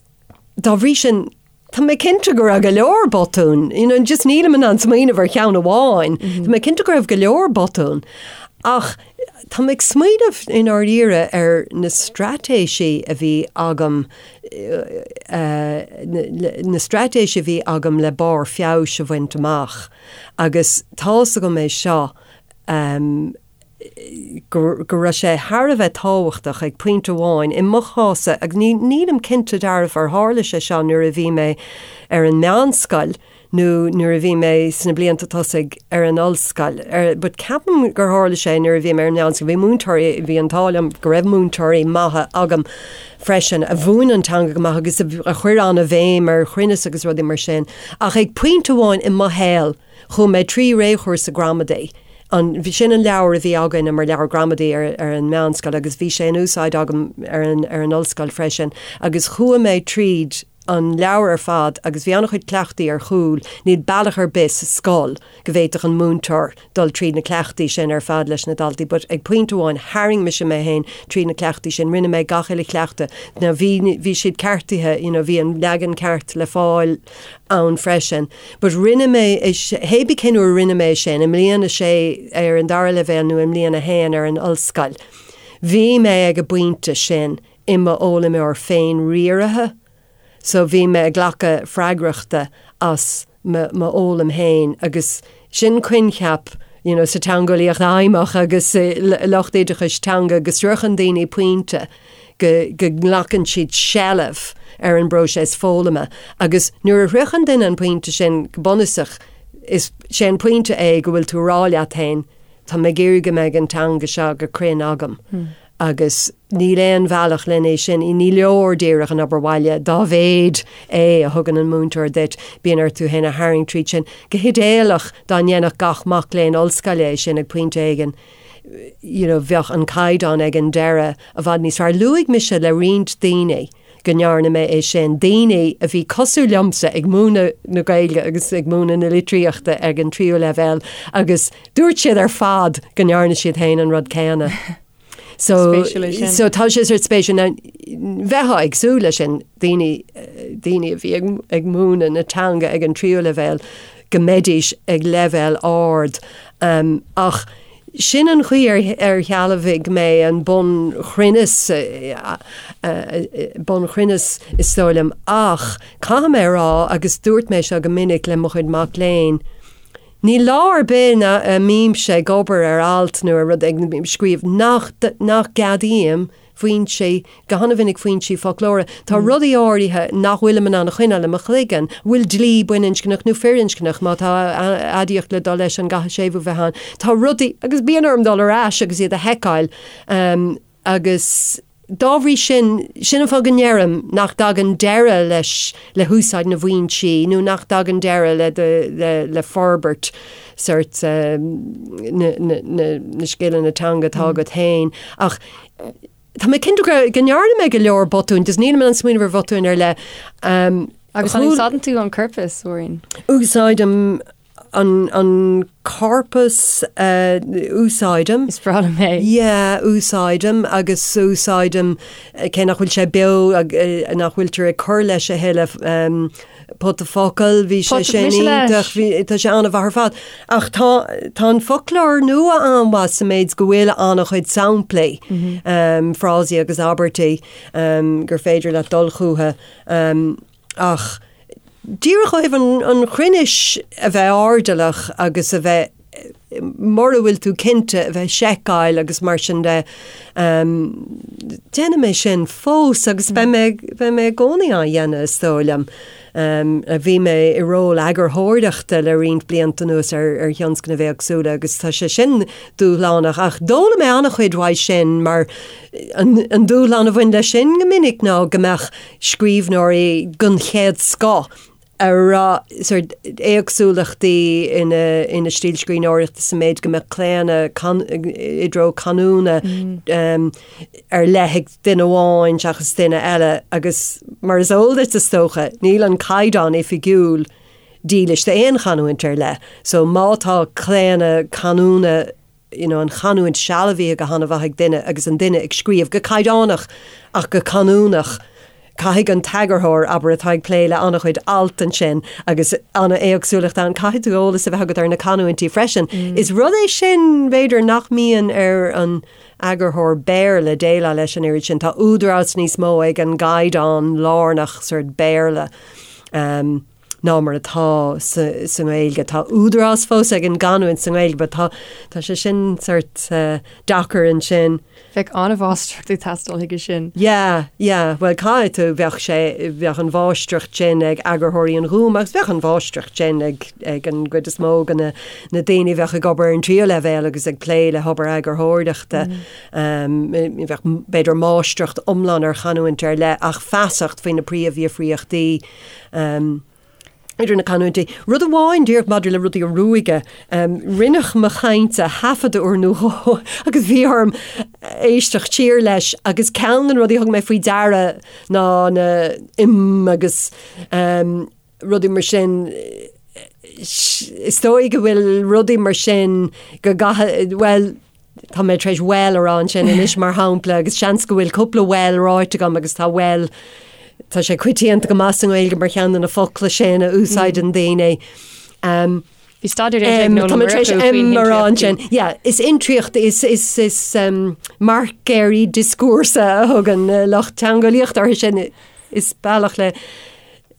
dá bhrí sin, tá mé cinnte go raibh go leor botún, you know, just nílim in ann smaoineamh ar cheann amháin, tá mé cinnte go raibh go leor botún. Ach. Tá mé ag smaoineamh i ndáiríre ar na straitéisí a bhí agam, na straitéisí a bhí agam le barr feabhais a bhaint amach agus tá's agam é seo, go raibh sé thar a bheith tábhachtach ag pointe amháin, i mo chás-sa, agus nílim cinnte dearfa ar tharla sé seo nuair a bhí mé ar an meánscoil nó nuair a bhí mé sna blianta tosaigh ar an ollscoil, but ceapaim gur tharla sé nuair a bhí mé ar an meánscoil, bhí múinteoirí, bhí an t-ádh liom go raibh múinteoirí maithe agam freisin a mhúin an teanga go maith agus a chuir an-bhéim ar chruinneas agus rudaí mar sin. Ach ag pointe amháin i mo shaol, Chuaigh mé trí réchúrsa gramadaí. An, sin an leabhar a bhí againne mar leabhar gramadaí ar, ar an meánscoil agus bhí sé in úsáid agam ar an, ar an ollscoil freisin agus chuaigh mé tríd an leabhar ar fad agus bhí an-chuid cleachtaí ar chúl, níl bealach ar bith sa scoil go bhféadfadh an múinteoir dul tríd na cleachtaí sin ar fad leis na daltaí but ag pointe amháin tharraing mise mé féin tríd na cleachtaí sin, rinne mé gach uile chleachtadh. Now bhí, bhí siad ceartaithe, you know, bhí an leagan ceart le fáil ann freisin. But rinne mé é, hébí cén uair a rinne mé é sin, i mbliain a sé ar an dara leibhéal nó i mbliain a haon ar an ollscoil, bhí mé ag an bpointe sin i m'fhoghlaimeoir féin-riaraithe, so bhí mé ag glacadh freagrachta as m'fhoghlaim féin agus sin coincheap you know sa teangeolaíocht fheidhmeach agus i lucht oideachais teanga go sroicheann daoine pointe go go nglacann siad seilbh ar an bpróiseas foghlama agus nuair a shroicheann duine an pointe sin go bunúsach is sé an pointe é go bhfuil tú ag rá leat féin tá mé ag iarraidh go mbeidh an teanga seo go cruinn agam. Agus níl aon bhealach len é sin, ní leor díreach an obair bhaile, dá mhéad é a thugann an múinteoir duit, bíonn ort tú féin a tharraingt tríd sin. Go hidéalach, dá ndéanfadh gach mac léinn ollscoile é sin ag pointe éigin, you know, bheadh an caighdeán ag an deireadh i bhfad níos fearr. Luaigh mise le roinnt daoine go ndearna mé é sin, daoine a bhí cosúil liomsa ag múineadh na Gaeilge agus ag múineadh na litríochta ag an tríú leibhéal agus dúirt siad ar fad go ndearna siad féin an rud céanna. So, so tá sé sort spéisiúil. Now, bheifeá ag súil leis sin, daoine, daoine a bhí ag, ag múineadh na teanga ag an tríú leibhéal, go mbeidís ag leibhéal ard. Um, ach sin an chaoi ar, ar shealbhaigh mé an bunchruinneas, bunchruinneas is dóigh liom. Ach caithfidh mé a rá, agus dúirt mé seo go minic le mo chuid mac léinn, Níl lá ar bith a mbímse ag obair ar alt nó ar rud ag scríobh nach nach gceadaím foinsí, go han-mhinic foinsí foclóra. Tá rudaí áirithe nach bhfuilim in ann a choinneáil i mo chloigeann. An bhfuil dlí baininscneach nó firinscneach? Má tá aidiacht le dul leis an gcaithfidh séimhiú bheith ann? Tá rudaí, agus bíonn orm dul ar ais agus iad a sheiceáil. Agus dá bhrí sin, sin an fáth go ndeirim nach dtagann deireadh leis, le húsáid na bhfoinsí, nó nach dtagann deireadh le do, le, le forbairt sort na, na, na, na scileanna teanga atá agat féin. Ach tá mé cinnte go, go ndearna mé go leor botúin, just nílim in ann smaoineamh ar bhotúin ar leith. Agus an úsáideann tú an corpas, Mháirín? Úsáidim An an corpas a úsáidim. Is breá liom é. Yeah, úsáidim agus úsáidim cé nach bhfuil sé beo nach bhfuiltear ag cur leis a thuilleadh pota focal, bhí sé sin iontach, bhí tá sé an-mhaith ar fad. Ach tá tá an foclóir nua an-mhaith sa méid go bhfuil an-chuid samplaí, frásaí agus abairtí gur féidir leat dul chucu. Ach díreach ó thaobh an chruinnis a bheith airdeallach agus a bheith, mura bhfuil tú cinnte, a bheith ag seiceáil agus mar sin de, déanaim é sin fós agus beidh mé, beidh mé i gcónaí á dhéanamh is dóigh liom. Bhí mé i ról eagarthóireachta le roinnt blianta anuas ar ar thionscnaimh éagsúla agus tá sé sin dúshlánach ach d'fhoghlaim mé an-chuid uaidh sin mar an dúshlán a bhain leis sin go minic ná go mbeadh scríbhneoirí den chéad scoth a raibh sort éagsúlachtaí ina ina stíl scríbhneoireachta sa méid go mbeadh claonadh i dtreo canúna ar leith ag duine amháin seachas duine eile agus mar is eol duit is dócha, níl an caighdeán oifigiúil dílis d'aon chanúint ar leith. So má tá claonadh canúna you know, an chanúint sealbhaithe go han-mhaith ag duine agus an duine ag scríobh go caighdeánach ach go canúnach. Caithfidh an t-eagarthóir, abair, atá ag plé le an-chuid alt ansin agus an-éagsúlacht ann, caithfidh tú eolas a bheith agat ar na canúintí freisin. Is rud é sin, b'fhéidir, nach mbíonn ar an eagarthóir Béarla déileáil leis an oiread sin. Tá údarás níos mó ag an gcaighdeán lárnach sort Béarla ná mar atá sa nGaeilge. Tá údarás fós ag an gcanúint sa nGaeilge but tá tá sé sin sort deacair ansin. Bheadh an-mháistreacht ag teastáil chuige sin. Yeah, yeah, bhuel caithfidh tú, bheadh sé, bheadh an mháistreacht sin ag eagarthóirí an Ghúim agus bheadh an mháistreacht sin ag ag an gcuid is mó de na na daoine a bheadh ag obair ar an tríú leibhéal agus ag plé le hobair eagarthóireachta. Bheadh b'fhéidir máistreacht iomlán ar chanúint ar leith ach feasacht faoi na príomhdhifríochtaí idir na canúintí. Rud amháin díreach maidir le rudaí a ruaigeadh, rinneadh mo chaint a thaifeadadh uair nó dhó agus bhí orm éisteacht siar leis agus ceann de na rudaí a thug mé faoi deara ná na 'im' agus rudaí mar sin, is dóigh go bhfuil rudaí mar sin go gcaithfidh, bhuel, tá mé tar éis 'well' a rá ansin anois mar shampla agus seans go bhfuil cúpla 'well' ráite agam agus tá 'well', tá sé coitianta go maith sa nGaeilge mar cheann de na focla sin a úsáideann daoine. Um, Bhí staidéar déanta ag Noel Tá mé tar éis 'em' a rá ansin. Yeah, is intriacht, is, is, is um, marcéirí dioscúrsa a thugann lucht teangeolaíochta orthu sin. Is bealach le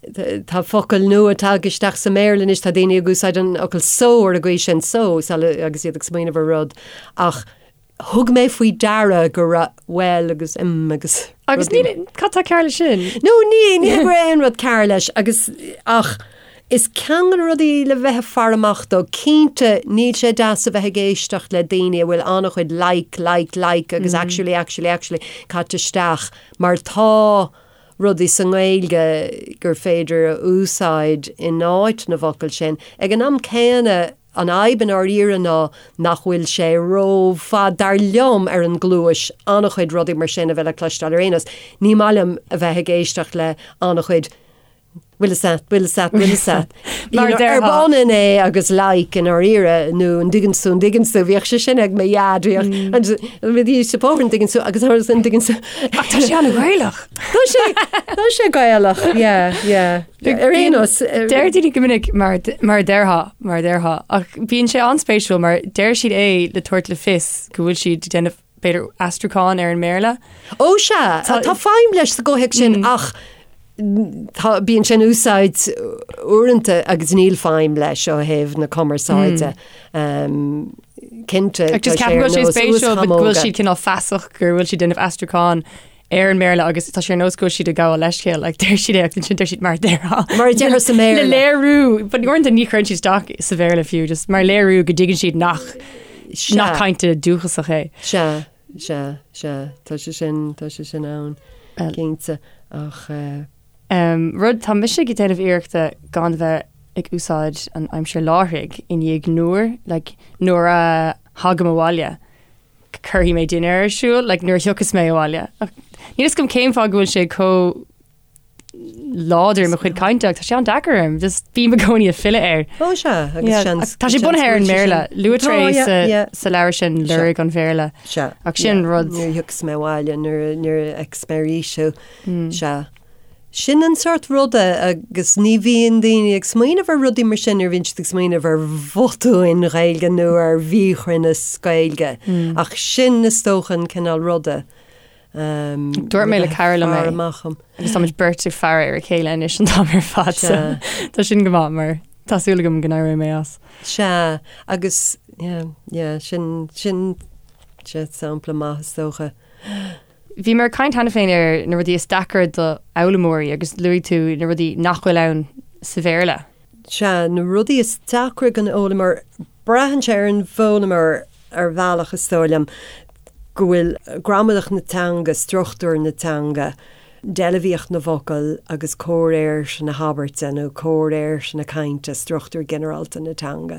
Tá focail nua tagtha isteach sa mBéarla anois, tá daoine ag úsáid an fhocal so ar an gcaoi sin, so, agus iad ag smaoineamh ar rud, ach thug mé faoi deara go raibh well agus 'em agus Agus ní, cad tá cearr leis sin? No, ní, ní go raibh aon rud cearr leis agus ach is ceann de na rudaí le bheith ag faire amach dó. Cinnte, níl sé deas a bheith ag éisteacht le daoine a bhfuil an-chuid like, like, like agus actually, actually, actually caite isteach mar tá rudaí sa nGaeilge gur féidir a úsáid in áit na bhfocal sin. Ag an am céanna, an fhadhb i ndáiríre ná nach bhfuil sé rófhada, dar liom, ar an gcluais, an-chuid rudaí mar sin a bheith le cloisteáil ar aon nós. Ní maith liom a bheith ag éisteacht le an-chuid Bhfuil fhios a't, bhfuil fhios a't, bhfuil fhios a't. Mar a déarfá. Arb ionann é agus like i ndáiríre, nó an dtuigeann tú, an dtuigeann tú, bhíodh sé sin ag mo dhaid, bhíodh, bhí sé bóthar an dtuigeann tú agus an dtuigeann tú. Ach tá sé an-Ghaelach. Tá sé, tá sé Gaelach, yeah, yeah. Ar aon nós. Deir daoine go minic mar mar a déarfá, mar a déarfá, ach bíonn sé an-spéisiúil mar deir siad é le tabhairt le fios go bhfuil siad ag déanamh b'fhéidir aistriúchán ar an mBéarla. Ó sea, tá feidhm leis sa gcomhthéacs sin ach tá, bíonn sé in úsáid uaireanta agus níl feidhm leis ó thaobh na cumarsáide. Cinnte, tá sé ar nós spéisiúil go bhfuil siad cineál feasach go bhfuil siad ag déanamh aistriúchán ar an mBéarla agus tá sé ar nós go bhfuil siad ag gabháil leithscéal, like, deir siad é agus ansin deir siad mar a déarfá. Mar a déarfá sa mBéarla. Le léiriú, but uaireanta ní chuireann siad isteach sa Bhéarla fiú, just mar léiriú go dtuigeann siad nach Nach caint dúchasach é. Sea, sea, sea, tá sé sin, tá sé sin ann, cinnte, ach eh. Rud, tá mise ag déanamh iarrachta gan bheith ag úsáid an aimsir láithrigh i ndiaidh nuair, like, nuair a thagaim abhaile, cuirfidh mé dinnéar ar siúl, like, nuair a thiocfas mé abhaile. Ach níl fhios agam cén fáth go bhfuil sé chomh láidir i mo chuid cainte ach tá sé an-deacair orm, just bím i gcónaí ag filleadh air. Ó sea, agus Yeah, seans- ach tá sé seans bunaithe ar an go bhfuil sé mBéarla. sin. Luaitear Tá, é yeah, sa, yeah. sa leabhar sin Sea. Lorg an Bhéarla. Sea. Ach sin yeah. rud. Nuair a thiocfas mé abhaile, nuair a, nuair a fheicfeas mé arís thú. Sea. Sin an sórt ruda agus ní bhíonn daoine ag smaoineamh ar rudaí mar sin nuair a bhíonn siad ag smaoineamh ar bhotúin Ghaeilge nó ar mhíchruinneas Gaeilge. Ach sin is dócha an cineál ruda. Dúirt mé le cara liom é agus táimid beirt ag faire ar a chéile anois an t-am ar fad so tá sin go maith mar tá súil agam go n-éireoidh mé as. Sea, agus yeah, yeah, sin, sin, sin sampla maith is dócha. Bhíomar ag caint cheana féin ar na rudaí is deacra do fhoghlaimeoirí agus luaigh tú na rudaí nach bhfuil ann sa Bhéarla. Sea, na rudaí is deacra don fhoghlaimeoir, braitheann sé ar an bhfoghlaimeoir ar bhealach is dóigh liom, go bhfuil gramadach na teanga, struchtúr na teanga, deilbhíocht na bhfocal agus comhréir na habairte nó comhréir na cainte, struchtúr ginearálta na teanga.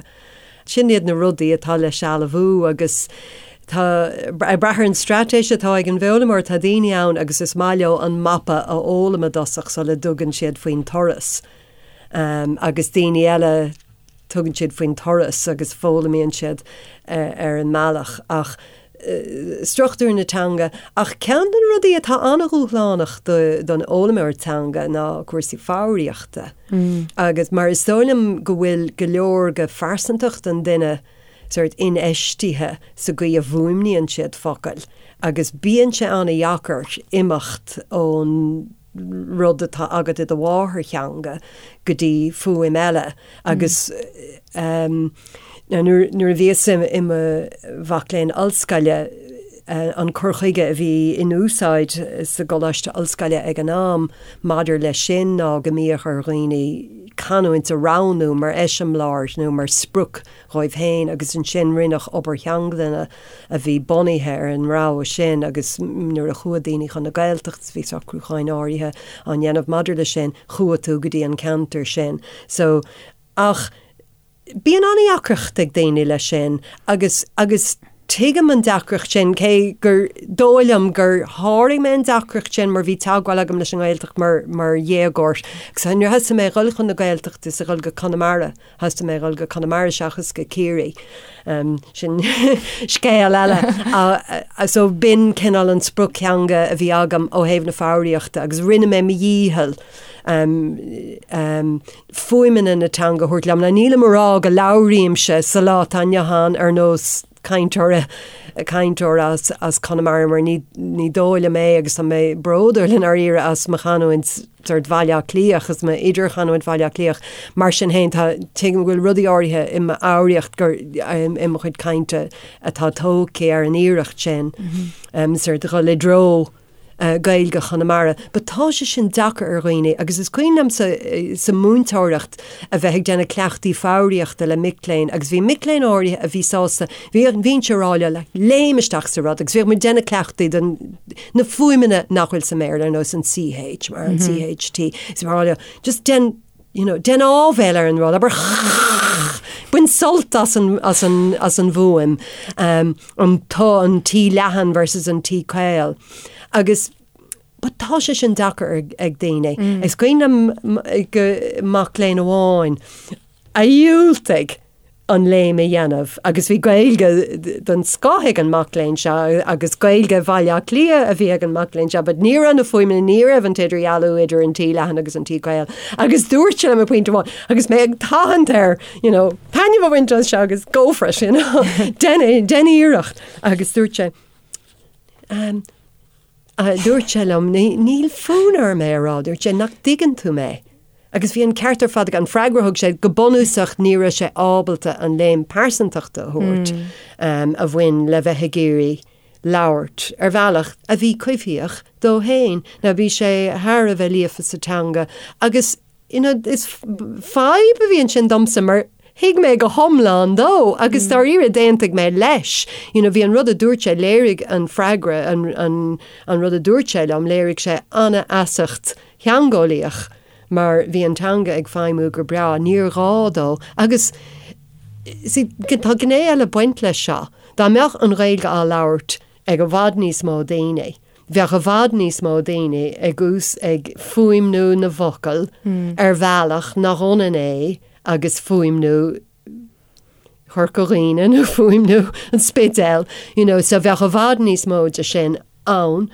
Sin iad na rudaí atá le sealbhú agus tá, ag brath ar an straitéis atá ag an bhfoghlaimeoir, tá daoine ann agus is maith leo an mapa a fhoghlaim i dtosach sula dtugann siad faoin turas agus daoine eile, tugann siad faoin turas agus foghlaimíonn siad ar an mbealach. Ach. struchtúr na teanga. Ach ceann de na rudaí atá an-dhúshlánach don fhoghlaimeoir teanga ná cúrsaí foghraíochta. Agus mar is dóigh liom go bhfuil go leor de phearsantacht an duine sórt infheistithe sa gcaoi a bhfuaimníonn siad focail agus bíonn sé an-dheacair imeacht ón rud atá agat i do mháthairtheanga go dtí fuaim eile agus nuair a bhíos i mo mhac léinn ollscoile an cur chuige a bhí in úsáid sa gcoláiste ollscoile ag an am maidir leis sin ná go mbíodh ar dhaoine canúint a roghnú mar eiseamláir nó mar sprioc dhóibh féin agus ansin rinneadh obair theanglainne a bhí bunaithe ar an rogha sin agus nuair a chuaigh daoine chun na Gaeltachta bhí socrúcháin áirithe á ndéanamh maidir leis sin, chuaigh tú go dtí an ceantar sin. So, ach bíonn an-deacracht ag daoine leis sin agus, agus tuigim an deacracht sin cé gur dóigh liom gur sháraigh mé an deacracht sin mar bhí teagmháil agam leis an nGaeltacht mar, mar dhéagóir agus nuair a thosaigh mé a dhul chun na Gaeltachta is a dhul go Conamara, Thosaigh mé a dhul go Conamara seachas go Ciarraí. Sin scéal eile. So b'in cineál an sprioctheanga a bhí agam ó thaobh na foghraíochta agus rinne mé mo dhícheall fuaimeanna na teanga a thabhairt liom. Now nílim a rá go labhraímse sa lá atá inniu ann ar nós cainteoir cainteoir as as Conamara mar ní ní dóigh liom é agus tá mé bródúil i ndáiríre as mo chanúint sórt Bhaile Átha Cliath agus m'idirchanúint Bhaile Átha Cliath. Mar sin féin tá tuigim go bhfuil rudaí áirithe i m'fhoghraíocht gur i mo chuid cainte atá tógtha ar an iarracht sin sórt dhul i dtreo Gaeilge Chonamara. But tá sé sin deacair ar dhaoine agus is cuimhin liom sa sa múinteoireacht a bheith ag déanamh cleachtaí foghraíochta le mic léinn agus bhí mic léinn áirithe a bhí sásta, bhí bhínnse ag rá leo like léim isteach sa rud agus bhíodh muid ag déanamh cleachtaí den na fuaimeanna nach bhfuil sa mBéarla ar nós an CH mar an CHT is bhí mé ag rá leo just déan you know, déan áibhéil ar an rud, abair bain sult as an, as an, as an bhfuaim, um, an t, an T leathan versus an T caol. Agus but tá sé sin deacair ag, ag daoine. Mm. Is cuimhin liom go mac léinn amháin a dhiúltaigh an léim a dhéanamh agus bhí Gaeilge den scoth ag an mac léinn seo agus Gaeilge Bhaile Átha Cliath a bhí ag an mac léinn seo but ní raibh na fuaimeanna, ní raibh an t-idirdhealú idir an T leathan agus an T caol agus dúirt sé liom ag pointe amháin agus mé ag tathant air you know, taitneamh a bhaint as seo agus go for it, you know, déan déan iarracht agus dúirt sé um, Dúirt sé liom, níl fonn orm é a rá, dúirt sé, nach dtuigeann tú mé? Agus bhí an ceart ar fad aige, an freagra a thug sé, go bunúsach ní raibh sé ábalta an léim pearsantachta a thabhairt a bhain le bheith ag iarraidh labhairt ar bhealach a bhí coimhthíoch dó féin. Now bhí sé thar a bheith líofa sa teanga agus you know, is fadhb a bhí ansin domsa mar thuig mé go hiomlán dó agus dáiríre d'aontaigh mé leis. You know, bhí an rud a dúirt sé, léirigh an freagra, an, an, an rud a dúirt sé liom, léirigh sé an-fheasacht theangeolaíoch mar bhí an teanga ag feidhmiú go breá, níor ghá dó. Agus see, tá gné eile ag baint leis seo. Dá mbeadh an Ghaeilge á labhairt ag i bhfad níos mó daoine, bheadh i bhfad níos mó daoine ag ús ag fuaimniú na bhfocal ar bhealach nach ionann é agus fuaimniú Chorca Dhuibhne nó fuaimniú an Spidéil, you know, so bheadh i bhfad níos mó de sin ann.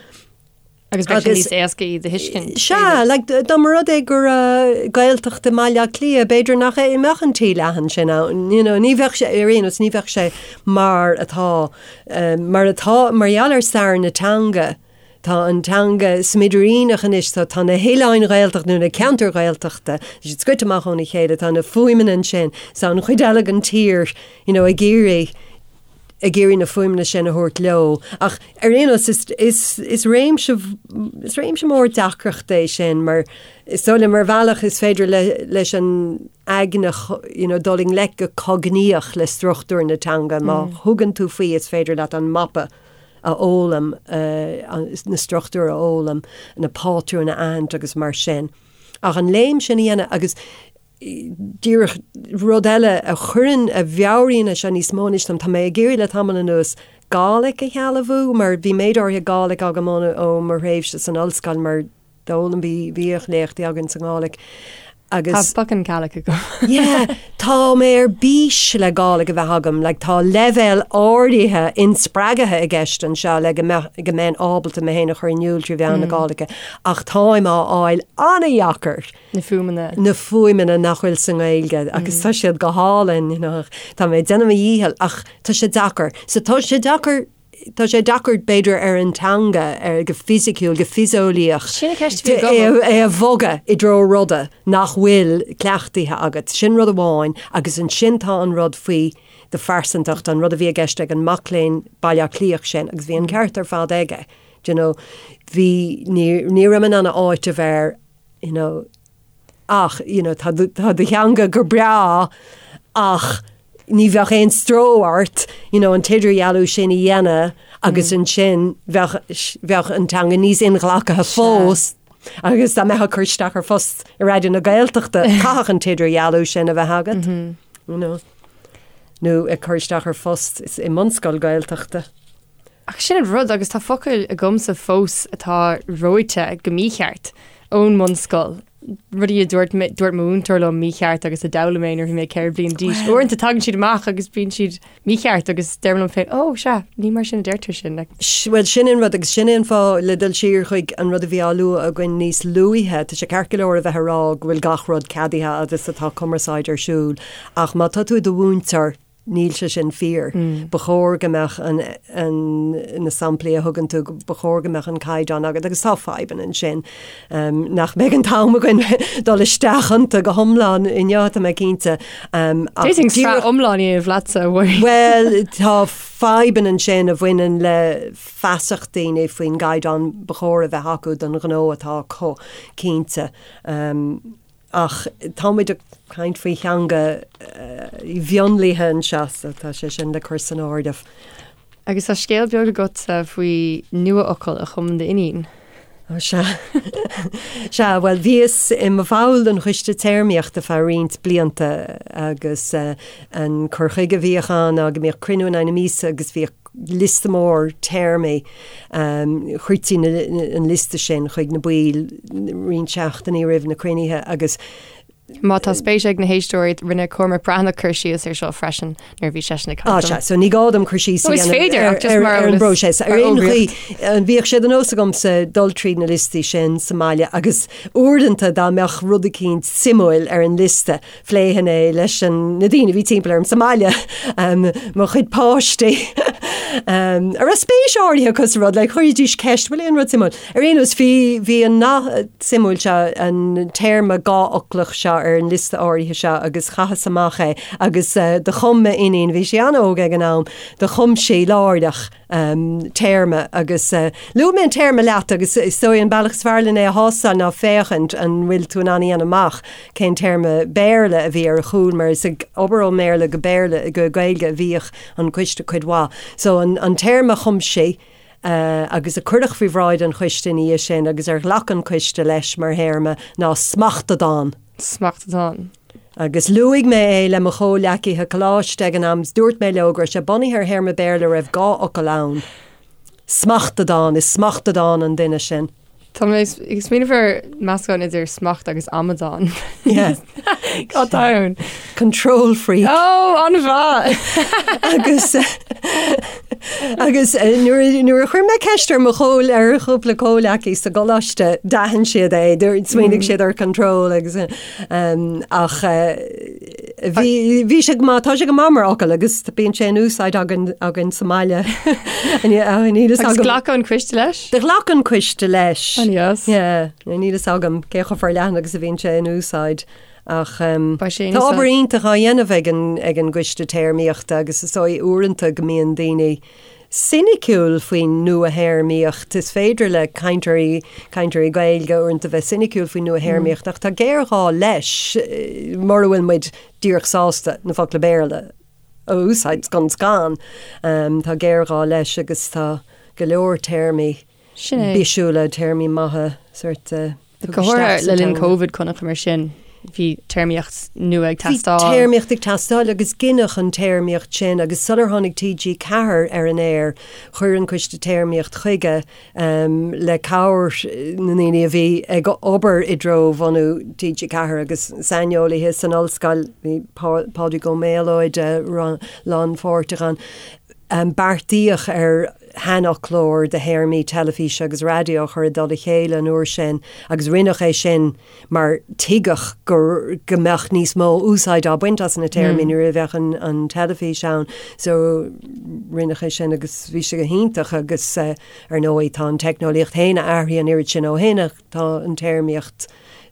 Agus bheadh sé níos éasca iad a thuiscint. Sea, like, dá mba rud é go raibh Gaeltacht i mBaile Átha Cliath, b'fhéidir nach é mbeadh an T leathan sin ann, you know, ní bheadh sé, ar aon nós, ní bheadh sé mar atá, mar atá, mar gheall ar stair na teanga, tá an teanga smidiríneach anois, tá, tá na hoileáin Ghaeltachta nó na ceantair Ghaeltachta, tá siad scoite amach óna chéile, tá na fuaimeanna ansin, so an chuid eile den tír, you know, ag iarraidh, ag iarraidh na fuaimeanna sin a thabhairt leo. Ach ar aon nós, is, is, is réimse, is réimse mór deacrachta é sin mar is dóigh liom ar bhealach is féidir le, leis an aigne you know, dul i ngleic go cognaíoch le struchtúr na teanga. Má thugann tú faoi is féidir leat an mapa a fhoghlaim, na struchtúir a fhoghlaim, na pátrúin a aithint agus mar sin. Ach an léim sin a dhéanamh agus díreach rud eile a chuireann, a mheabhraíonn é seo níos mó anois dom, tá mé ag iarraidh le tamall anuas Gàidhlig a shealbhú mar bhí méid áirithe Gàidhlig agam ó mo thréimhse san ollscoil mar d'fhoghlaim, bhí, bhíodh léachtaí againn sa nGàidhlig. Agus. Tá fucking Gaelic agam. Yeah, tá mé ar bís le Gàidhlig a bheith agam, like tá leibhéal áirithe inspreagaithe i gceist anseo le go mbeadh, go mbeinn ábalta mé féin a chur in iúl trí mheán na Gàidhlige, ach táim á fháil an-dheacair. Na fuaimeanna. Na fuaimeanna nach bhfuil sa nGaeilge agus tá siad go hálainn, you know, tá mé ag déanamh mo dhícheall ach tá sé deacair. So tá sé deacair Tá sé deacair, b'fhéidir, ar an teanga, ar, go fisiciúil, go fiseolaíoch, Sin an cheist a bhí agam. é a bhogadh i dtreo ruda nach bhfuil cleachtaithe agat. Sin rud amháin agus ansin tá an rud faoi do phearsantacht, an rud a bhí i gceist ag an mac léinn Baile Átha Cliathach sin agus bhí an ceart ar fad aige. Do you know, bhí, ní, ní raibh mé in ann a áiteamh air, you know, ach, you know, tá do, tá do theanga go breá ach ní bheadh aon stró ort, you know, an t-idirdhealú sin a dhéanamh agus ansin bheadh, bheadh an teanga níos inghlactha fós agus dá mbeifeá ag cur isteach ar phost i Raidió na Gaeltachta, chaithfeadh an t-idirdhealú sin a bheith agat, you know, nó ag cur isteach ar phost i mbunscoil Gaeltachta. Ach sin an rud, agus tá focail agamsa fós atá reoite go mícheart ón mbunscoil, rudaí a dúirt mé, dúirt mo mhúinteoir liom mícheart agus a d'fhoghlaim mé nuair a bhí mé 4 bliana d'aois. Uaireanta tagann siad amach agus bíonn siad mícheart agus deirim liom féin, 'Ó, sea, ní mar sin a deirtear sin'. Like. Bhuel, sin an rud agus sin é an fáth, le dul siar chuig an rud a bhí á lua againn níos luaithe, tá sé ceart go leor a bheith ag rá go bhfuil gach rud ceadaithe agus atá cumarsáid ar siúl ach má tá tú i do mhúinteoir, Níl sé sin fíor. Ba chóir go mbeadh an, an, na samplaí a thugann tú, ba chóir go mbeadh an caighdeán agat agus tá fadhbanna ansin nach mbeidh an t-am againn dul isteach iontu go hiomlán inniu, tá mé cinnte. Ach D'fhéadfainn sraith iomlán a dhéanamh leatsa, a Mháirín. Bhuel, tá fadhbanna ansin a bhaineann le feasacht daoine faoin gcaighdeán ba chóir a bheith acu don ghnó atá acu, cinnte. Ach tá muid ag caint faoi theanga mhionlaithe anseo, so tá sé sin le cur san áireamh. Agus tá scéal beag agatsa faoi nuafhocal a chum d'iníon. Ó sea. Sea, bhuel, bhíos i mo bhall den Choiste Téarmaíochta feadh roinnt blianta agus an cur chuige a bhíodh ann ná go mbíodh cruinniú in aghaidh na míosa agus bhíodh liosta mór téarmaí. Chuirtí an liosta sin chuig na baill roinnt seachtainí roimh na cruinnithe agus. Má tá spéis ag na héisteoirí, rinne Cormac Breathnach cur síos air seo freisin nuair a bhí seisean ag caint. Á sea, so ní gá dom cur síos a dhéanamh ar an bpróiseas. Ar aon chaoi, bhíodh sé de nós agamsa dul tríd na liostaí sin sa mbaile agus uaireanta dá mbeadh rud eicínt suimiúil ar an liosta, Phléifinn é leis na daoine a bhí timpeall orm sa mbaile, mo chuid páistí, a raibh spéis áirithe acu sa rud, like, chuiridís ceist, bhfuil aon rud suimiúil? Ar aon nós, bhí, bhí an nath suimiúil seo, an téarma dhá-fhoclach seo ar an liosta áirithe seo agus chaitheas amach é agus do chum m'iníon, bhí sí an-óg ag an am, do chum sí láithreach, téarma agus luaigh mé an téarma leat agus is dóigh an bealach is fearr len é a thástáil ná féachaint an bhfuil tú in ann a dhéanamh amach cén téarma Béarla a bhí ar a chúl mar is ag obair ón mBéarla go Béarla go Gaeilge a bhíodh an coiste cuid mhaith. So an an téarma a chum sí agus a cuireadh faoi bhráid an choiste ina dhiaidh sin agus ar ghlac an coiste leis mar théarma ná smachtadán. Smachtadán. Agus luaigh mé é le mo chomhleacaithe coláiste ag an am is dúirt mé leo go raibh sé bunaithe ar théarma Béarla a raibh 2 fhocal ann. Smachtadán, is smachtadán an duine sin. Tá mé ag smaoineamh ar meascán idir smacht agus amadán. Yeah. Cad tá ann? Control freak. Ó, an-mhaith! Agus agus nuair nuair a chuir mé ceist ar mo chomh ar chúpla comhleacaí sa gcoláiste, d'aithin siad é, smaoinigh siad ar control agus Ach bhí bhí sé go maith, tá sé go maith mar fhocal agus bíonn sé in úsáid againn againn sa mbaile. Níl a fhios Agus agam. ghlac an coiste leis? Do ghlac an coiste leis. An-deas. Yeah, níl a fhios agam cé chomh forleathan agus a bhíonn sé in úsáid. Ach Beidh sé in tá obair úsáid. iontach á dhéanamh ag an ag an gcoiste téarmaíochta agus is dóigh uaireanta go mbíonn daoine soiniciúil faoin nua-théarmaíocht. Is féidir le cainteoirí, cainteoirí Gaeilge uaireanta bheith soiniciúil faoin nua-théarmaíocht ach tá géarghá leis mura bhfuil muid díreach sásta na focla Béarla a úsáid scun scan. Tá géarghá leis agus tá go leor téarmaí Sin é. bisiúla, téarmaí maithe sórt tugtha Go háirithe isteach sa le linn teanga. Covid, chonaiceamar sin. Bhí téarmaíocht nua ag teastáil. Bhí téarmaíocht ag teastáil agus gineadh an téarmaíocht sin agus sular tháinig TG4 ar an aer, chuir an Coiste Téarmaíocht chuige le cabhair na ndaoine a bhí ag obair i dtreo bhunú TG4 agus saineolaithe san ollscoil, bhí Pádraig Ó Méalóid lánpháirteach ann. Beartaíodh ar shainfhoclóir de théarmaí teilifíse agus raidió a chur i dtoll a chéile an uair sin agus rinneadh é sin mar tuigeadh go go mbeadh níos mó úsáid á baint as na téarmaí nuair a bheadh an an teilifís ann. So rinneadh é sin agus bhí sé go hiontach agus ar ndóigh tá an teicneolaíocht féin athraithe an oiread sin ó shin ach tá an téarmaíocht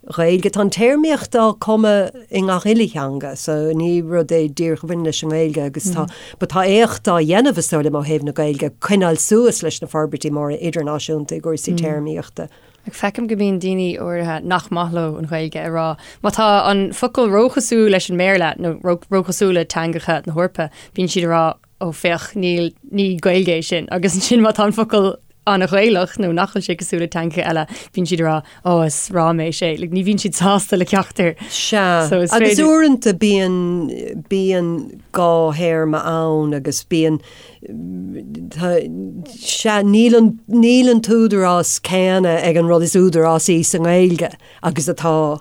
Ghaeilge, tá an téarmaíocht á cumadh i ngach uile theanga so ní rud é díreach a bhaineann leis an nGaeilge agus tá but tá éacht á dhéanamh is dóigh liom ó thaobh na Gaeilge coinneáil suas leis na forbairtí móra idirnáisiúnta i gcúrsaí téarmaíochta. Ach feicim go mbíonn daoine áirithe nach maith leo an Ghaeilge ag rá má tá an focal róchosúil leis an mBéarla nó róchosúil le teangacha na hEorpa, bíonn siad ag rá ó féach níl, ní Gaeilge é sin agus ansin má tá an focal an-Ghaelach nó nach bhfuil sé cosúil le teangacha eile, bíonn siad ag rá ó is ráiméis é. Like, ní bhíonn siad sásta le ceachtar. Sea, So is agus féidir- uaireanta bíonn, bíonn dhá théarma ann agus bíonn, Sea, níl an, níl an t-údarás céanna ag an rud is údarásaí sa nGaeilge agus atá,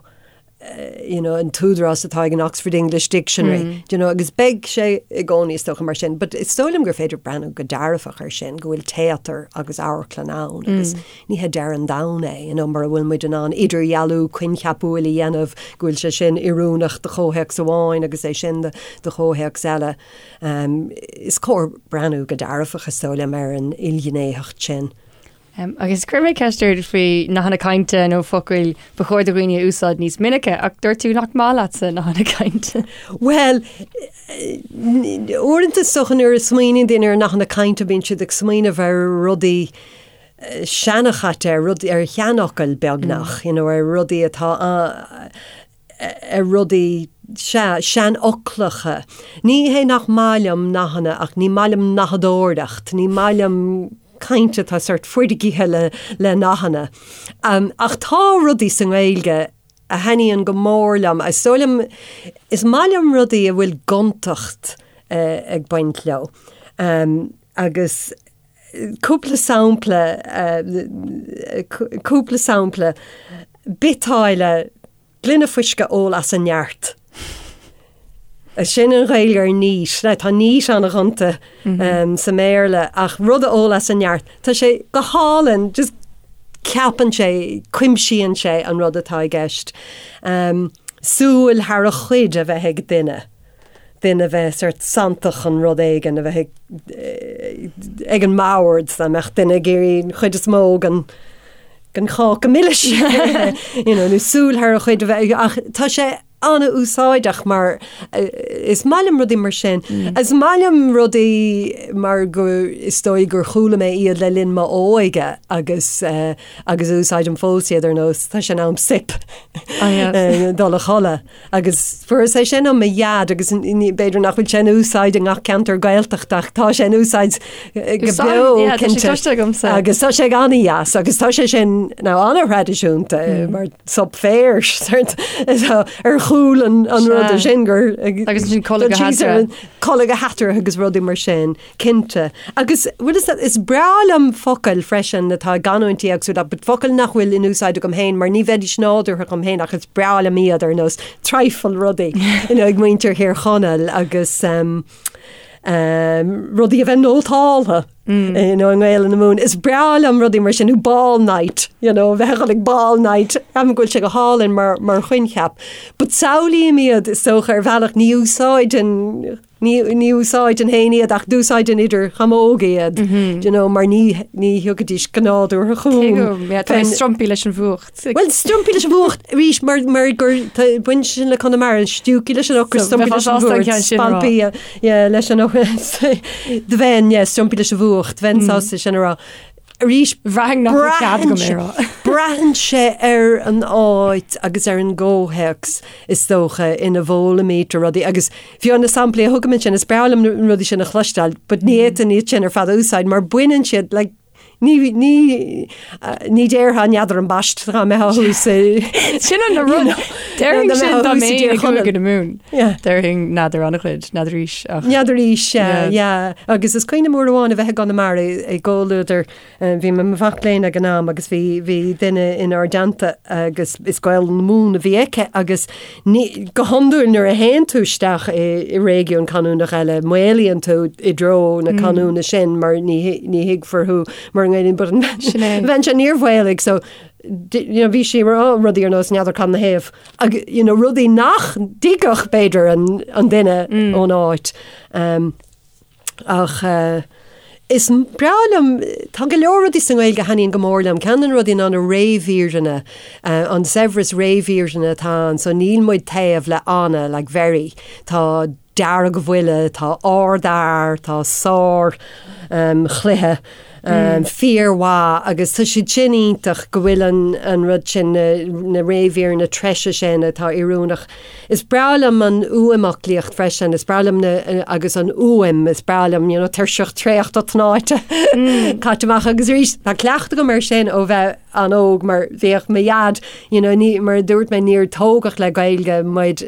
you know, an t-údarás atá ag an Oxford English Dictionary, do you know, agus beidh sé i gcónaí is dócha mar sin. But is dóigh liom gur féidir breathnú go dearfach air sin, go bhfuil téatar agus amharclann ann agus ní hé deireadh an domhain é, you know, mura bhfuil muid in ann idirdhealú coincheapúil a dhéanamh go bhfuil sé sin oiriúnach do chomhthéacs amháin agus é sin do, do chomhthéacs eile. Is cóir breathnú go dearfach, is dóigh liom, ar an ilghnéitheacht sin. Agus chuir mé ceist ort faoi nathanna cainte nó focail ba chóir do dhaoine a úsáid níos minice, ach dúirt tú nach maith leatsa nathanna cainte. Bhuel, uaireanta is dócha nuair a smaoiníonn daoine ar nathanna cainte bíonn siad ag smaoineamh ar rudaí seanchaite, ar rudaí, ar sheanfhocail beagnach, you know, ar rudaí atá ar rudaí, sea, seanfhoclacha. Ní hé nach maith liom nathanna ach ní maith liom nathadóireacht, ní maith liom caint atá sort foirgithe le, le nathanna. Ach tá rudaí sa nGaeilge a thaitníonn go mór liom. Is dóigh liom, is maith liom rudaí a bhfuil gontacht ag baint leo. Agus Cúpla sampla, cúpla sampla, biotáille, gloine fuisce a ól as a neart. Sin an Ghaeilge ar neat. Now tá neat an-ghonta sa mBéarla ach rud a ól as a neart, tá sé go hálainn, just ceapann sé, cuimsíonn sé an rud atá i gceist. Súil thar a chuid a bheith ag duine. duine a bheith sort santach chun rud éigin a bheith ag an mbord, dá mbeadh duine ag iarraidh an chuid is mó den den cháca milis you know, nó súil thar a chuid a bheith ach tá sé an-úsáideach mar is maith liom rudaí mar sin. Is maith liom rudaí mar go is dóigh gur chuala mé iad le linn m'óige agus agus úsáidim fós iad ar nós tá sé in am soip dul a chodladh. Agus fuaireas é sin ó mo dhaid agus b'fhéidir nach bhfuil sé in úsáid i ngach ceantar Gaeltachta ach tá sé in úsáid go beo, cinnte. Agus tá sé an-dheas agus tá sé sin now an-thraidisiúnta mar sop féir ar chúl an ruda sin gur Agus sin codladh go heatarthu. Codladh go heatarthu agus rudaí mar sin. Cinnte. Agus, bhfuil fhios agat, is breá liom focail freisin atá i gcanúintí éagsúla, but focail nach bhfuil in úsáid agam féin mar ní bheidís nádúrtha dhom féin ach is breá liom iad ar nós trifle rudaí, you know, ag muintir Thír Chonaill agus um, um, rudaí a bheith nótáltha. Mm. You know, i nGaelainn na Mumhan. Is breá liom rudaí mar sin, nó ball night, you know, bheith ag dul ag ball night, ceapaim go bhfuil sé go hálainn mar, mar choincheap. But samhlaím iad is dócha ar bhealach ní úsáideann Ní, ní úsáideann féin iad ach d'úsáidinn idir chamóg iad, do you know, mar ní, ní thiocfaidís go nádúrtha chugam. Cé go, yeah, tá mé strumpaí leis an bhfuacht. Bhuel, strumpaí leis an bhfuacht arís mar, mar gur, tá, bhain sin le Conamara, stiúcaí leis an ocras, So, strumpaí leis an bhfuacht, ceann sin a rá. spalpaí, yeah, leis an ocras, do bheinn, yeah, strumpaí leis an bhfuacht, bheinn sásta sin a rá. Arís, Bhraithfinn nach raibh cead agam é a rá. Braitheann sé ar an áit agus ar an gcomhthéacs is dócha ina bhfoghlaimítear rudaí agus fiú na samplaí a thugaim ansin, is breá liom na rudaí sin a chloisteáil, but ní fhéadfainn iad sin ar fad a úsáid mar baineann siad like, Ní, ní, ní déarfá n'fheadar ambaist dá mbeifeá thuas i. Sin an rud. Déarfainn sin dá mbeinn i gCúige na Mumhan. Déarfainn n'fheadar an-chuid, n'fheadaraís ach. N'fheadaraís, sea, yeah. Agus is cuimhin liom uair amháin a bheith i gConamara i gcomhluadar Bhí mé i mo mhac léinn ag an am agus bhí, bhí duine inár dteannta agus is Gaolainn na Mumhan a bhí aici agus ní, go hiondúil nuair a théann tú isteach i, i réigiún canúnach eile, maolaíonn tú i dtreo na canúna sin mar ní, ní thuigfear thú mura nGaelainn but an Sin é. bhean seo níor mhaolaigh so you know, bhí sí ag rá rudaí ar nós n'fheadar cad 'na thaobh agus you know, rudaí nach dtuigfeadh b'fhéidir an, an duine ón áit. Um, Ach is breá liom, tá go leor rudaí sa nGaeilge a thaitníonn go mór liom. Ceann de na rudaí ná na réimhíreanna, an saibhreas réimhíreanna atá ann. So níl muid taobh le ana, like very. Tá deargbhuile, tá ardfhear, tá sár chluiche, fíormhaith agus tá siad sin iontach go bhfuil an an rud sin, na réimhíreanna treise sin atá oiriúnach. Is breá liom an fhuaimfhoclaíocht freisin, is breá liom na, agus an fhuaim, is breá liom, you know, tuirseach traochta tnáite caite amach agus arís tá cleachtadh agam air sin ó bheith an-óg mar bhíodh mo dhaid, you know, ní, mar a dúirt mé níor tógadh le Gaeilge muid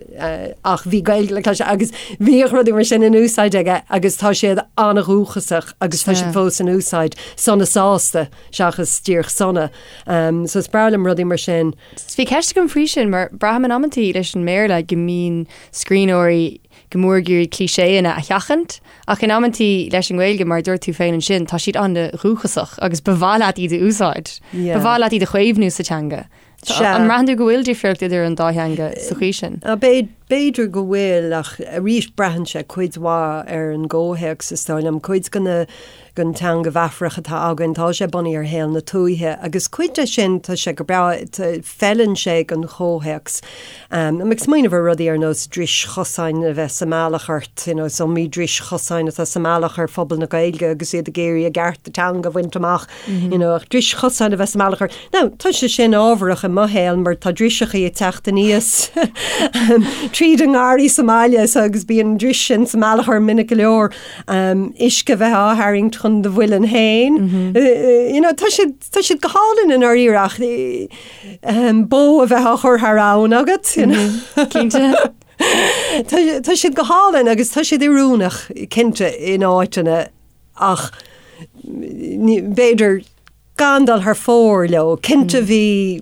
ach bhí Gaeilge le cloisteáil agus bhíodh rudaí mar sin in úsáid aige agus tá siad an-dhúchasach agus tá siad fós in úsáid, sona sásta seachas díreach sona. So is breá liom rudaí mar sin. Bhí ceist agam faoi sin mar braithim in amantaí leis an mBéarla go mbíonn scríbhneoirí go mór ag iarraidh cliché-anna a sheachaint ach in amantaí leis an nGaeilge mar a dúirt tú féin ansin tá siad an-dhúchasach agus ba mhaith leat iad a úsáid. Ba mhaith leat iad a chaomhnú sa teanga. An mbraitheann tú go bhfuil difríocht idir an dá theanga sa chaoi sin? B'fhéidir go bhfuil ach arís braitheann sé cuid mhaith ar an gcomhthéacs is dóigh liom. Cuid de na den teanga mheafarach atá againn, tá sé bunaithe ar shaol na tuaithe agus cuid de sin, tá sé go breá, feileann sé don chomhthéacs. Tá mé ag smaoineamh ar rudaí ar nós dris chosáin a bheith sa mbealach ort, you know, is iomaí dris chosáin atá sa mbealach ar phobal na Gaeilge agus iad ag iarraidh a gcearta teanga a bhaint amach, you know, ach dris chosáin a bheith sa mbealach ort. Now, tá sé sin ábharach i mo shaol mar tá driseachaí ag teacht aníos tríd an ngarraí sa mbaile so agus bíonn an dris sin sa mbealach orm minic go leor. Uisce a bheith á tharraingt chun do mhuilinn féin. You know, tá siad, tá siad go hálainn i ndáiríre ach bó a bheith á chur thar abhainn agat, you know. Cinnte. Tá, tá siad go hálainn agus tá siad oiriúnach, cinnte, in áiteanna ach b'fhéidir gan dul thar fóir leo. Cinnte bhí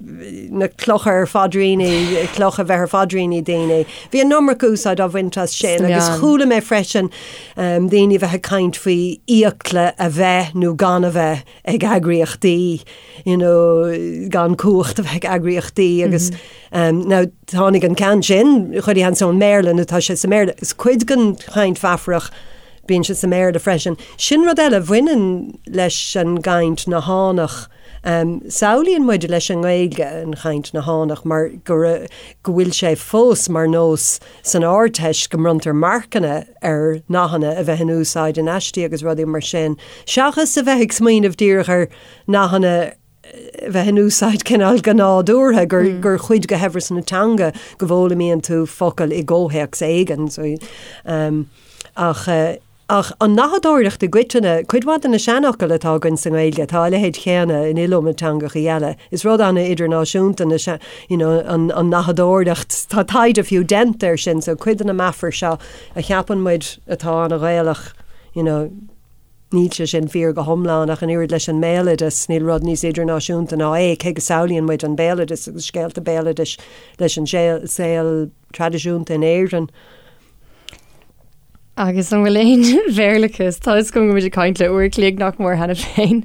na clocha ar phaidríní, clocha a bheith ar phaidríní daoine. Bhí an iomarca úsáid á bhaint as sin agus chuala mé freisin daoine a bheith ag caint faoi fhiacla a bheith nó gan a bheith ag eagraíochtaí, you know, gan cumhacht a bheith ag eagraíochtaí agus now tháinig an ceann sin, chuile sheans ón mBéarla nó tá sé sa mBéarla. Is cuid den chaint mheafarach Bíonn sé sa mBéarla freisin. Sin rud eile a bhaineann leis an gcaint nathánach. Samhlaíonn muid leis an nGaeilge an chaint nathánach mar go go bhfuil sé fós mar nós san Ardteist go mbronntar marcanna ar nathanna a bheith in úsáid in aistí agus rudaí mar sin, seachas a bheith ag smaoineamh díreach ar nathanna a bheith in úsáid cineál go nádúrtha, gur, gur chuid de shaibhreas na teanga go bhfoghlaimíonn tú focal i gcomhthéacs éigin. So, um, ach, eh, ach an nathadóireacht i gcoitinne, cuid mhaith de na seanfhocail atá againn sa nGaeilge, tá a leithéid chéanna in iliomad teangachaí eile. Is rud an-idirnáisiúnta na se, you know, an, an nathadóireacht. Tá taighde fiú déanta air sin, so cuid de na meafair seo a cheapann muid atá an-Ghaelach, you know, Níl sé sin fíor go hiomlán ach an oiread leis an mbéaloideas, níl rud níos idirnáisiúnta ná é, cé go samhlaíonn muid an béaloideas agus scéalta béaloidis leis an saol traidisiúnta in Éirinn. Agus an bhfuil aon Bhéarlachas? Tá fhios agam go bhfuil muid ag caint le uair a chloig nach mór cheana féin.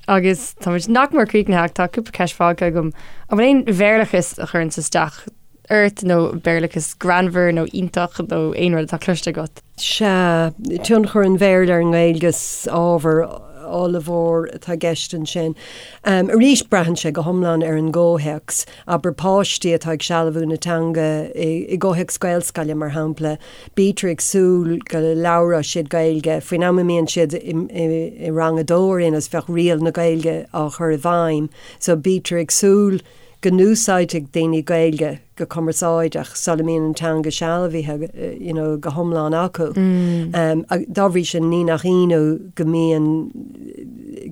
Agus tá muid nach mór críochnaithe ach tá cúpla ceist fágtha agam. An bhfuil aon Bhéarlachas a chuireanns isteach ort nó Béarlachas greannmhar nó iontach nó aon rud atá cloiste agat? Sea, tionchar an Bhéarla ar an nGaeilge is ábhar ollmhór atá i gceist ansin. Arís, braitheann sé go hiomlán ar an gcomhthéacs. Abair páistí atá ag sealbhú na teanga i gcomhthéacs Gaelscoile, mar shampla, bítear ag súil go labhróidh siad Gaeilge faoin am a mbíonn siad i rang a dó ar aon nós, bheadh riail na Gaeilge á chur i bhfeidhm. So bítear ag súil go n-úsáidfidh daoine Gaeilge go cumarsáideach sula mbíonn an teanga sealbhaithe you know, go hiomlán acu. Dá bhrí sin ní nach ionadh go mbíonn.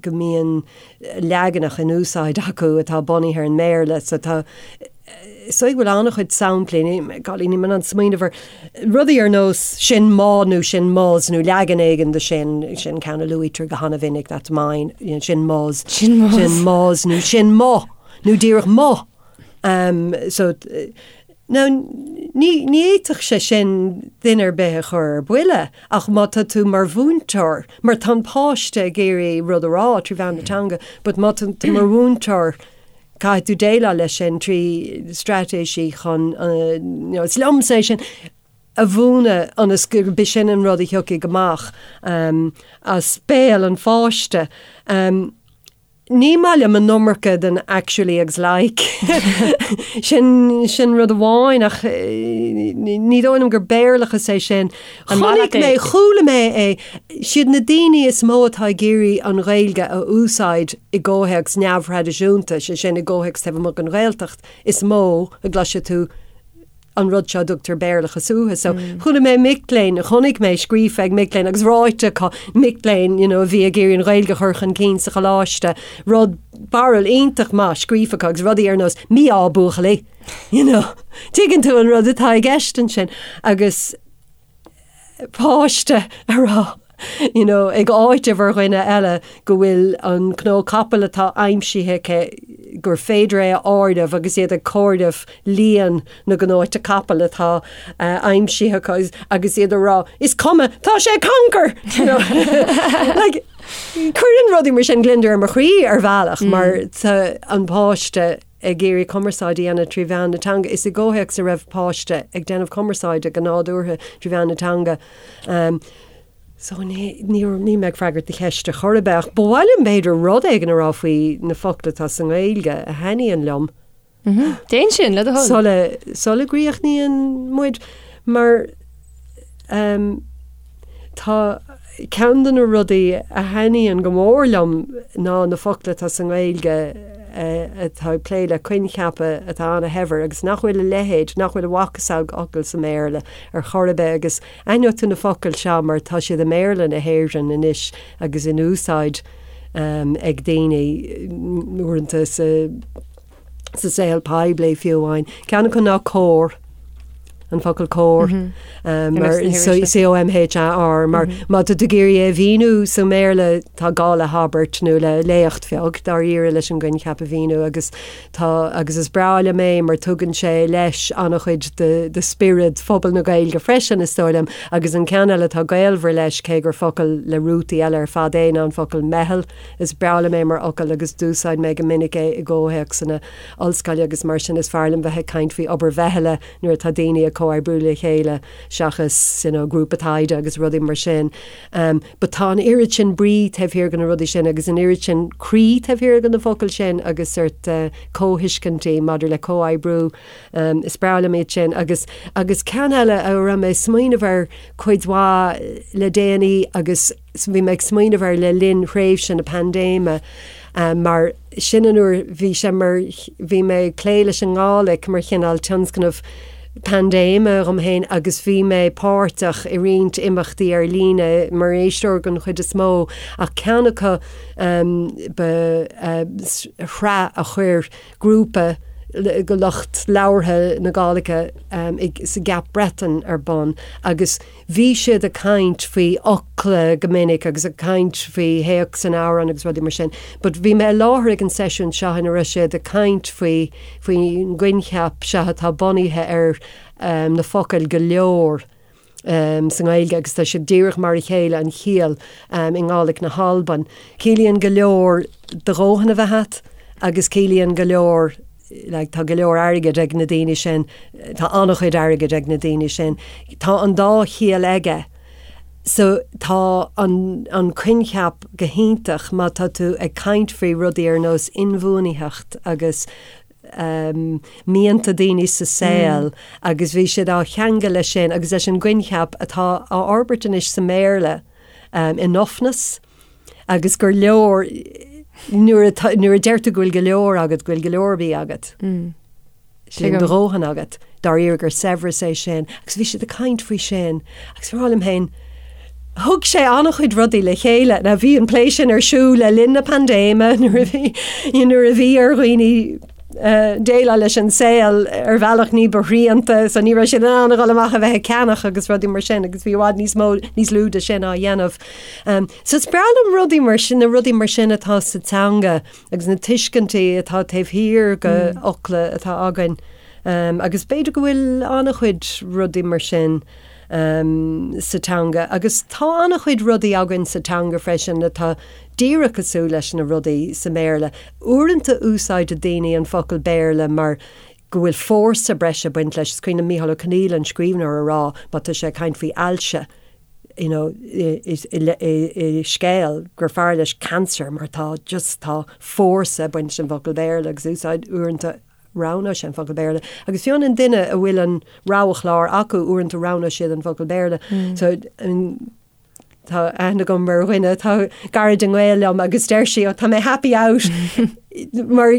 go mbíonn leaganacha in úsáid acu atá bunaithe ar an mBéarla so tá so go bhfuil an-chuid samplaí, golly níl mé in ann smaoineamh ar rudaí ar nós sin mo nó sin mos nó leagan éigin de sin, sin ceann a luaitear go han-mhinic, that's mine, you know, sin mos, Sin mos. sin mos nó sin mo nó díreach mo. Um, so, now, ní, ní fhéadfadh sé sin duine ar bith a chur ar buile ach má tá tú mar mhúinteoir, mar tá an páiste ag iarraidh rud a rá trí mheán na teanga, but má tá tú mar mhúinteoir, Caithfidh tú déileáil leis sin trí straitéisí chun, you know, is liomsa é sin a mhúineadh ionas gurb é sin an rud a thiocfaidh amach as béal an pháiste. Ní maith liom an iomarca den actually agus like. Sin, sin rud amháin ach ní dóigh liom gur Béarlachas é sin. Chonaic mé, chuala mé é, siad na daoine is mó atá ag iarraidh an Ghaeilge a úsáid i gcomhthéacs neamhthraidisiúnta, sé sin i gcomhthéacs taobh amuigh den Ghaeltacht, is mó a gcloisfidh tú an rud seo a dtugtar Béarlachas uathu. So chuala mé mic léinn, chonaic mé scríofa ag mic léinn agus ráite acu, mic léinn you know, a bhí ag iarraidh an Ghaeilge a chur chun cinn sa choláiste, rud barúil iontach maith scríofa acu agus rudaí ar nós mí-ádh buachaillí. You know, tuigeann tú an rud atá i gceist ansin agus páiste a rá, you know, ag áiteamh ar dhuine eile go bhfuil an cnó capaill atá aimsithe aici gur féidir é a áireamh agus iad ag comhaireamh líon na gcnóite capaill atá aimsithe acu agus iad a rá, is cuma, tá sé cancar! You know? Like, cuireann rudaí mar sin gliondar ar mo chroí ar bhealach mar tá an páiste ag iarraidh cumarsáid a dhéanamh trí mheán na teanga. Is i gcomhthéacs a raibh páiste ag déanamh cumarsáide go nádúrtha trí mheán na teanga. So ní, ní, níl mé ag freagairt do cheist ar chor ar bith ach ba mhaith liom b'fhéidir rud éigin a rá faoi na focla atá sa nGaeilge a thaitníonn liom. Déan sin, le do thoil. Sula, sula gcríochnaíonn muid mar um, tá Ceann de na rudaí a thaitníonn go mór liom ná na focla atá sa nGaeilge atá ag plé le coincheapa atá ana-shaibhir agus nach bhfuil a leithéid, nach bhfuil a mhacasamhail sa mBéarla ar chor ar bith agus aithneoidh tú na focail seo mar tá siad i mBéarla na hÉireann anois agus in úsáid ag daoine uaireanta sa sa saol poiblí fiú amháin. Ceann acu ná comhar, an focal comhar, mar C-O-M-H-A-R, mar má tá tú ag iarraidh é a mhíniú sa mBéarla tá gá le habairt nó le léacht bheag dáiríre leis an gcoincheap a mhíniú agus tá agus is breá liom é mar tugann sé leis an-chuid de de spiorad phobal na Gaeilge freisin is dóigh liom agus an ceann eile atá gaolmhar leis cé gur focal le rútaí eile ar fad é ná an focal meitheal. Is breá liom é mar fhocal agus d'úsáid mé go minic é i gcomhthéacsanna ollscoile agus mar sin is fearr liom bheith ag caint faoi obair mheithle nuair atá daoine ag comhoibriú le chéile seachas you know grúpa taighde agus rudaí mar sin. Um, but tá an oiread sin brí taobh thiar de na rudaí sin agus an oiread sin croí taobh thiar de na focail sin agus sórt uh, comhthuiscintí maidir le comhoibriú. Um, is breá liom iad sin agus agus ceann eile a raibh mé ag smaoineamh air cuid mhaith le déanaí agus bhí mé ag smaoineamh air le linn thréimhse na paindéime mar sin an uair bhí sé mar bhí mé ag plé leis an nGàidhlig mar chineál tionscnamh paindéime dhom féin agus bhí mé páirteach i roinnt imeachtaí ar líne mar éisteoir den chuid is mó ach ceann acu ba shraith a chuir grúpa de lucht labhartha na Gàidhlige sa gCeap Breatainn ar bun agus Bhí siad ag caint faoi fhocla go minic agus ag caint faoi théacs an amhráin agus rudaí mar sin but bhí mé i láthair ag an seisiún seo ina raibh siad ag caint faoi faoin gcoincheap seo atá bunaithe ar na focail go leor sa nGaeilge agus tá siad díreach mar a chéile an chiall i nGàidhlig na hAlban. Ciallaíonn go leor do dhóthain a bheith agat agus ciallaíonn go leor like, tá go leor airgid ag na daoine sin, tá an-chuid airgid ag na daoine sin. Tá an dá chiall aige. So tá an, an coincheap go hiontach má tá tú ag caint faoi rudaí ar nós inbhuanaitheacht agus um, mianta daoine sa saol mm. agus bhí siad á cheangal leis sin agus leis an gcoincheap atá á fhorbairt anois sa mBéarla um, enoughness. agus gur leor nuair a nuair a deir tú go bhfuil go leor agat, go bhfuil go leor bídh agat. Sin do dhóthain agat, dáiríre gur saibhreas é sin. Agus bhí siad ag caint faoi sin agus bhí mé ag rá liom féin, Thug sé an-chuid rudaí le chéile. Now bhí an plé sin ar siúl le linn na paindéime nuair a bhí nuair a bhí ar dhaoine déileáil leis an saol ar bhealach ní ba shrianta so ní raibh siad in ann a dhul amach a bheith ag ceannach agus rudaí mar sin agus bhí i bhfad níos mó níos lú de sin á dhéanamh. Um, so is breá liom rudaí mar sin na rudaí mar sin atá sa teanga agus na tuiscintí atá taobh thiar de mm. fhocla atá againn. Um, agus b'fhéidir go bhfuil an-chuid rudaí mar sin sa teanga agus tá an-chuid rudaí againn sa teanga freisin atá díreach cosúil leis na rudaí sa mBéarla. Uaireanta úsáideann daoine an focal Béarla mar go bhfuil fórsa breise ag baint leis. Is cuimhin liom Mícheál Ó Conghaile, an scríbhneoir, a rá má tá sé ag caint faoi ailse you know i scéal gur fearr leis cancer mar tá just tá fórsa ag baint leis an bhfocal Béarla agus úsáid uaireanta roghnóidh sé an focal Béarla. Agus fiú an duine a bhfuil an roghchlár acu, uaireanta roghnóidh siad an focal Béarla. So, I mean, tá aithne agam ar dhuine atá gairid i ngaol liom agus deir sí, oh, tá mé happy out mar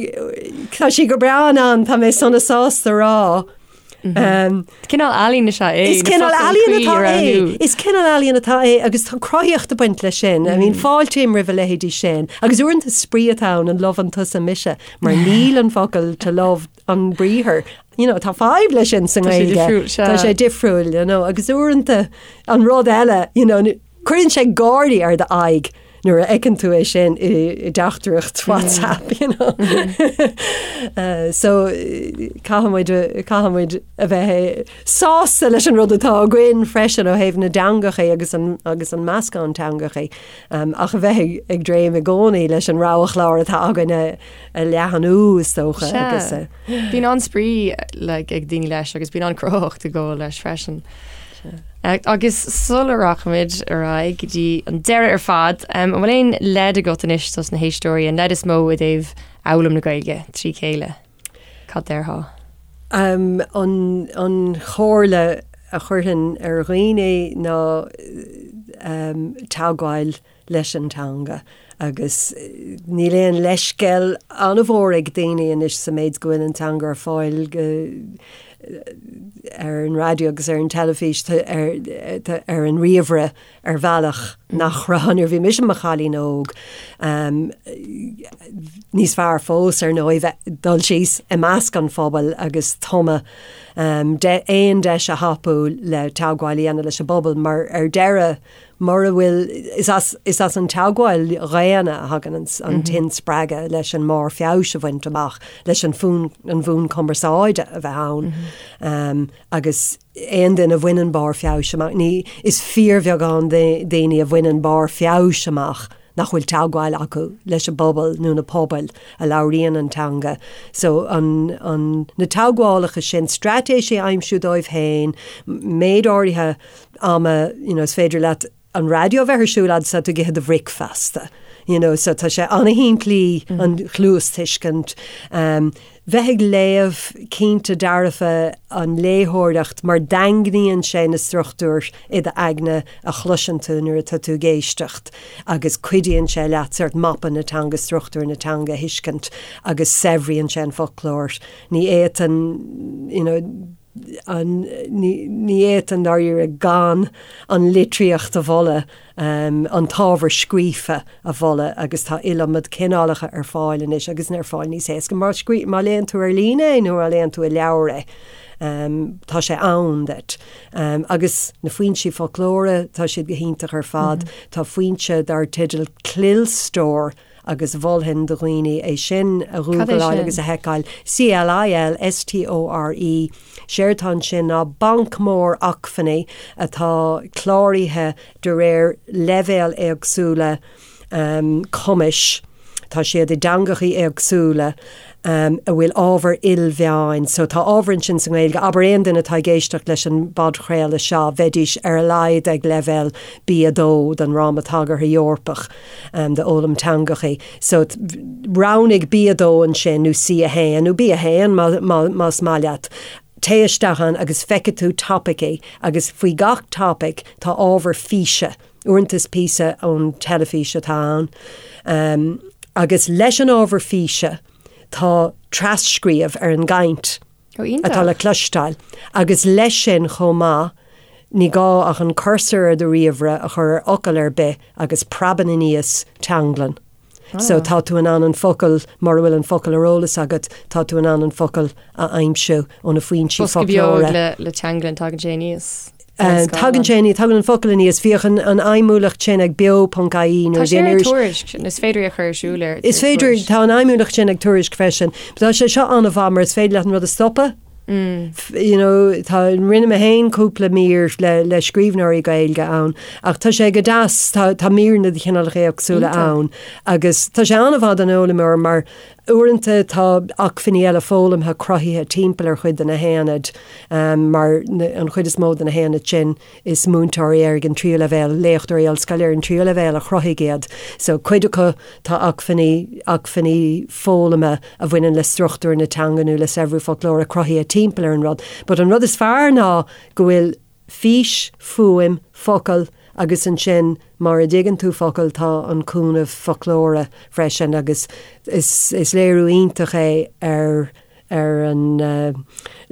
tá sí go breá in ann, tá mé sona sásta rá. Um, Cineál ealaín is ea é. Is cineál ealaíon atá é. Is cineál ealaíon atá é agus tá cruthaíocht ag baint leis sin. I mean fáiltím roimh a leithéidí sin. Agus uaireanta spraoi atá ann an loveann tusa mise mar níl an focal to love an briathar. You know, tá fadhb leis sin sa nGaeilge. Tá sé difriúil, you know, agus uaireanta an rud eile, you know, Cuireann sé gáirí ar d'aghaidh nuair a fheiceann tú é sin i dteachtaireacht WhatsApp, you know. So caithfidh muid, caithfidh muid a bheith sásta leis an rud atá againn freisin ó thaobh na dteangacha agus an, agus an meascán teangacha, ach a bheith ag dréim i gcónaí leis an rogha-chlár atá againn a, a leathnú is dócha agus a. Bíonn an-spraoi like ag daoine leis agus bíonn an-chruthaitheacht ag gabháil leis freisin. Agus sula rachaimid ar aghaidh go dtí an deireadh ar fad, an bhfuil aon leid agat anois dos na héisteoirí, an leid is mó i dtaobh fhoghlaim na Gaeilge trí chéile? Cad déarfá? An chomhairle a chuirfinn ar dhaoine ná teagmháil leis an teanga agus níl aon leithscéal an-mhór ag daoine anois sa méid go bhfuil an teanga ar fáil go ar an raidió agus ar an teilifís ar, ar an ríomhaire ar bhealach nach raibh nuair a bhí mise i mo chailín óg. Níos fearr fós ar ndóigh bheith dul síos i measc an phobail agus tumadh aon deis a thapú le teagmháil a dhéanamh leis an bpobal mar ar deireadh Mura bhfuil, is as, is as an teagmháil dhaonna a thagann an, an t-inspreagadh leis an mbarr feabhais a bhaint amach, leis an fón, an bhonn cumarsáide a bheith ann. Agus aon duine a bhaineann barr feabhais amach, ní, is fíorbheagán daoine a bhaineann barr feabhais amach nach bhfuil teagmháil acu leis an bpobal nó na pobail a labhraíonn an teanga. So, an, an, na teagmhálacha sin, straitéisí a aimsiú dóibh féin, méid áirithe ama, you know, is féidir leat an raidió a bheith ar siúl fhad is atá tú ag ithe do bhricfeasta, you know, so tá sé an-shimplí an chluastuiscint. Um, bheith ag léamh cinnte dearfa an léitheoireacht mar daingníonn sé na struchtúir i d'aigne a chloiseann tú nuair atá tú ag éisteacht agus cuidíonn sé leat sort mapa na teanga, struchtúr na teanga a thuiscint agus saibhríonn sé an foclóir. Ní fhéadfainn, you know, an, ní fhéadfainn dáiríre gan an litríocht a mholadh, an t-ábhar scríofa a mholadh agus tá iliomad cineálacha ar fáil anois agus ar fáil níos éasca má scrí, má léann tú ar líne é nó má léann tú i leabhar é, tá sé ann duit. Agus na foinsí foclóra, tá siad go hiontach ar fad. Tá foinse dar teideal Clilstore, agus mholfainn do dhaoine é sin a ghúgláil agus a sheiceáil, C-L-I-L-S-T-O-R-E. Séard atá ansin ná banc mór acmhainní atá cláraithe de réir leibhéal éagsúla cumais, tá siad i dteangachaí éagsúla, a bhfuil ábhar ilmheáin. So tá ábhar ansin sa nGaeilge, abair aon duine atá ag éisteacht leis an bpodchraoladh seo, bheidís ar a laghad ag leibhéal B2 den Fhráma Tagartha Eorpach. d'fhoghlaim teangachaí. So roghnaigh B2 ansin nó C1 nó B1 más maith leat. Téigh isteach ann agus feicfidh tú topaicí agus faoi gach topaic tá ábhar físe. Uaireanta is píosa ón teilifís atá ann. Agus leis an ábhar físe tá tras-scríobh ar an gcaint. Ó, iontach. atá le cloisteáil agus leis sin chomh maith. Ní gá ach an cursor ar do ríomhaire a chur ar fhocal ar bith agus preabann aníos teanglann. So tá tú in ann an focal, mura bhfuil an focal ar eolas agat, tá tú in ann an focal a aimsiú ó na foinsí Bosca beag foclóra. le, le teanglann, tagann sé aníos. ar an scáileán. Tagann sé aníos, tagann an focal aníos. Bhíodh an, an fheidhmiúlacht sin ag beo.ie Tá nuair a sé bhí an ar iris. Tuairisc, is féidir é a chur ar siúl ar Is féidir, Tuairisc. tá an fheidhmiúlacht sin ag Tuairisc freisin. But tá sé seo an-mhaith mar is féidir leat an rud a stopadh. You know, tá, rinne mé féin cúpla mír le, le scríbhneoirí Gaeilge ann, ach tá sé go deas, tá, tá míreanna de chineálacha éagsúla ann agus tá sé an-mhaith don fhoghlaimeoir mar uaireanta tá acmhainní eile foghlamtha cruthaithe timpeall ar chuid de na haonaid, mar an chuid is mó de na haonaid sin, Is múinteoirí ar an tríú leibhéal, léachtóirí ollscoile ar an tríú leibhéal a chruthaigh iad. So cuid acu tá acmhainní, acmhainní foghlama a bhaineann le struchtúr na teanga nó le saibhriú foclóra cruthaithe timpeall ar an rud. But an rud is fearr ná go bhfuil fís, fuaim, focal agus ansin mura dtuigeann tú focal tá an cúnamh foclóra freisin agus is, is léiriú iontach é ar ar an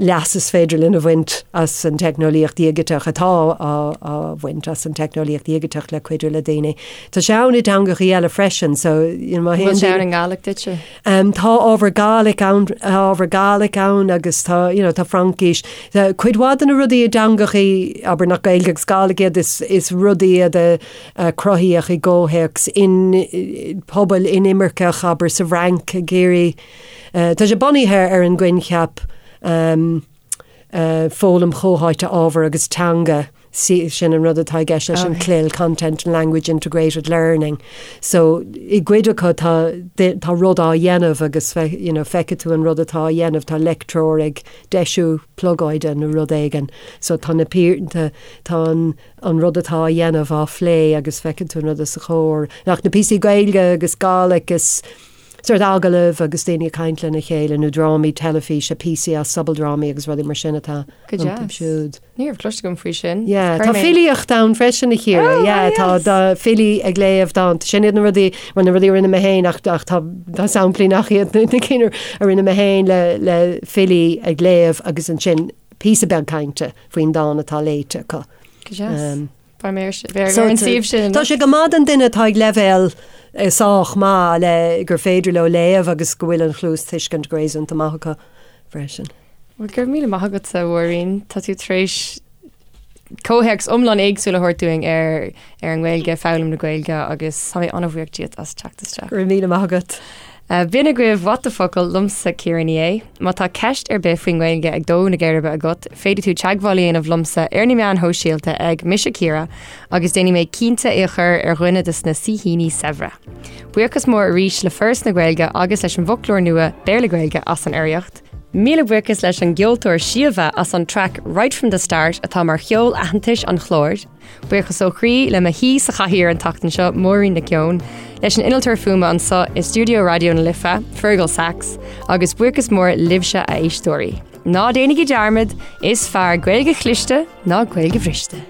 leas is féidir linn a bhaint as an teicneolaíocht dhigiteach, atá á bhaint as an teicneolaíocht dhigiteach le cuidiú le daoine. Tá sé ann i dteangachaí eile freisin, so you know, má théann Bhfuil sé ann i nGàidhlig duitse? Tá ábhar Gàidhlig ann, ábhar Gàidhlig ann agus tá, you know, tá Fraincis. Tá cuid mhaith de na rudaí i dteangachaí, abair nach Gaeilge agus Gàidhlig iad, is, is rudaí iad a a cruthaíodh i gcomhthéacs in pobail inimirceach, abair sa bhFrainc ag iarraidh Tá sé bunaithe ar an gcoincheap foghlaim chomhtháite ábhair agus teanga, sin an rud atá i gceist leis an CLIL, Content and Language Integrated Learning. So i gcuid acu tá tá rud á dhéanamh agus you know feicfidh tú an rud atá á dhéanamh, tá leictreoir ag deisiú plugóide nó rud éigin. So tá na tá tá an an rud atá á dhéanamh á phlé agus feiceann tú an rud os a chomhair. Ach na píosaí Gaeilge agus Gàidhlig is sórt agallaimh agus daoine ag caint lena chéile nó drámaí teilifíse, píosaí as sobaldrámaí agus rudaí mar sin atá Go iontu deas. siúd. Ní raibh cloiste agam faoi sin. Yeah, Chuir tá mé- filíocht ann freisin a Chiara. Oh, Yeah, tá yes. tá filí ag léamh dánta. Sin iad na rudaí, bhuel, na rudaí a rinne mé féin ach ach tá tá samplaí nach iad na cinn a rinne mé féin le le filí ag léamh agus ansin píosa beag cainte faoin dán atá léite acu. Go deas. Um, Beidh mé ar an suíomh sin. Tá sé go maith don duine atá ag leibhéal sách maith le gur féidir leo léamh agus go bhfuil an chluastuiscint go réasúnta maith acu freisin. Bhuel, go raibh míle maith agat, a Mháirín. Tá tú tar éis comhthéacs iomlán éagsúil a thabhairt dúinn ar ar an nGaeilge, foghlaim na Gaeilge agus tá mé an-bhuíoch díot as teacht isteach. Go raibh míle maith agat. B'in agaibh What the Focal liomsa Ciara Ní É. Má tá ceist ar bith faoin nGaeilge ag dó na geirbe agat, féadfaidh tú teagmháil a dhéanamh liomsa ar na meáin shóisialta ag Mise Ciara agus déanfaidh mé cinnte é a chur ar dhuine de na saoithíní saibhre. Buíochas mór arís le Foras na Gaeilge agus leis an bhfoclóir nua Béarla-Gaeilge as an urraíocht. Míle buíochas leis an gceoltóir Síomha as an traic Right From The Start atá mar cheol aitheantais an chláir. Buíochas ó chroí le mo shaoi sa chathaoir an tseachtain seo, Máirín Nic Eoin, leis an innealtóir fuaime anseo i stiúideo Raidió na Life, Fergal Sachs, agus buíochas mór libhse a éisteoirí. Ná déanaigí dearmad, is fearr Gaeilge chliste ná Gaeilge bhriste.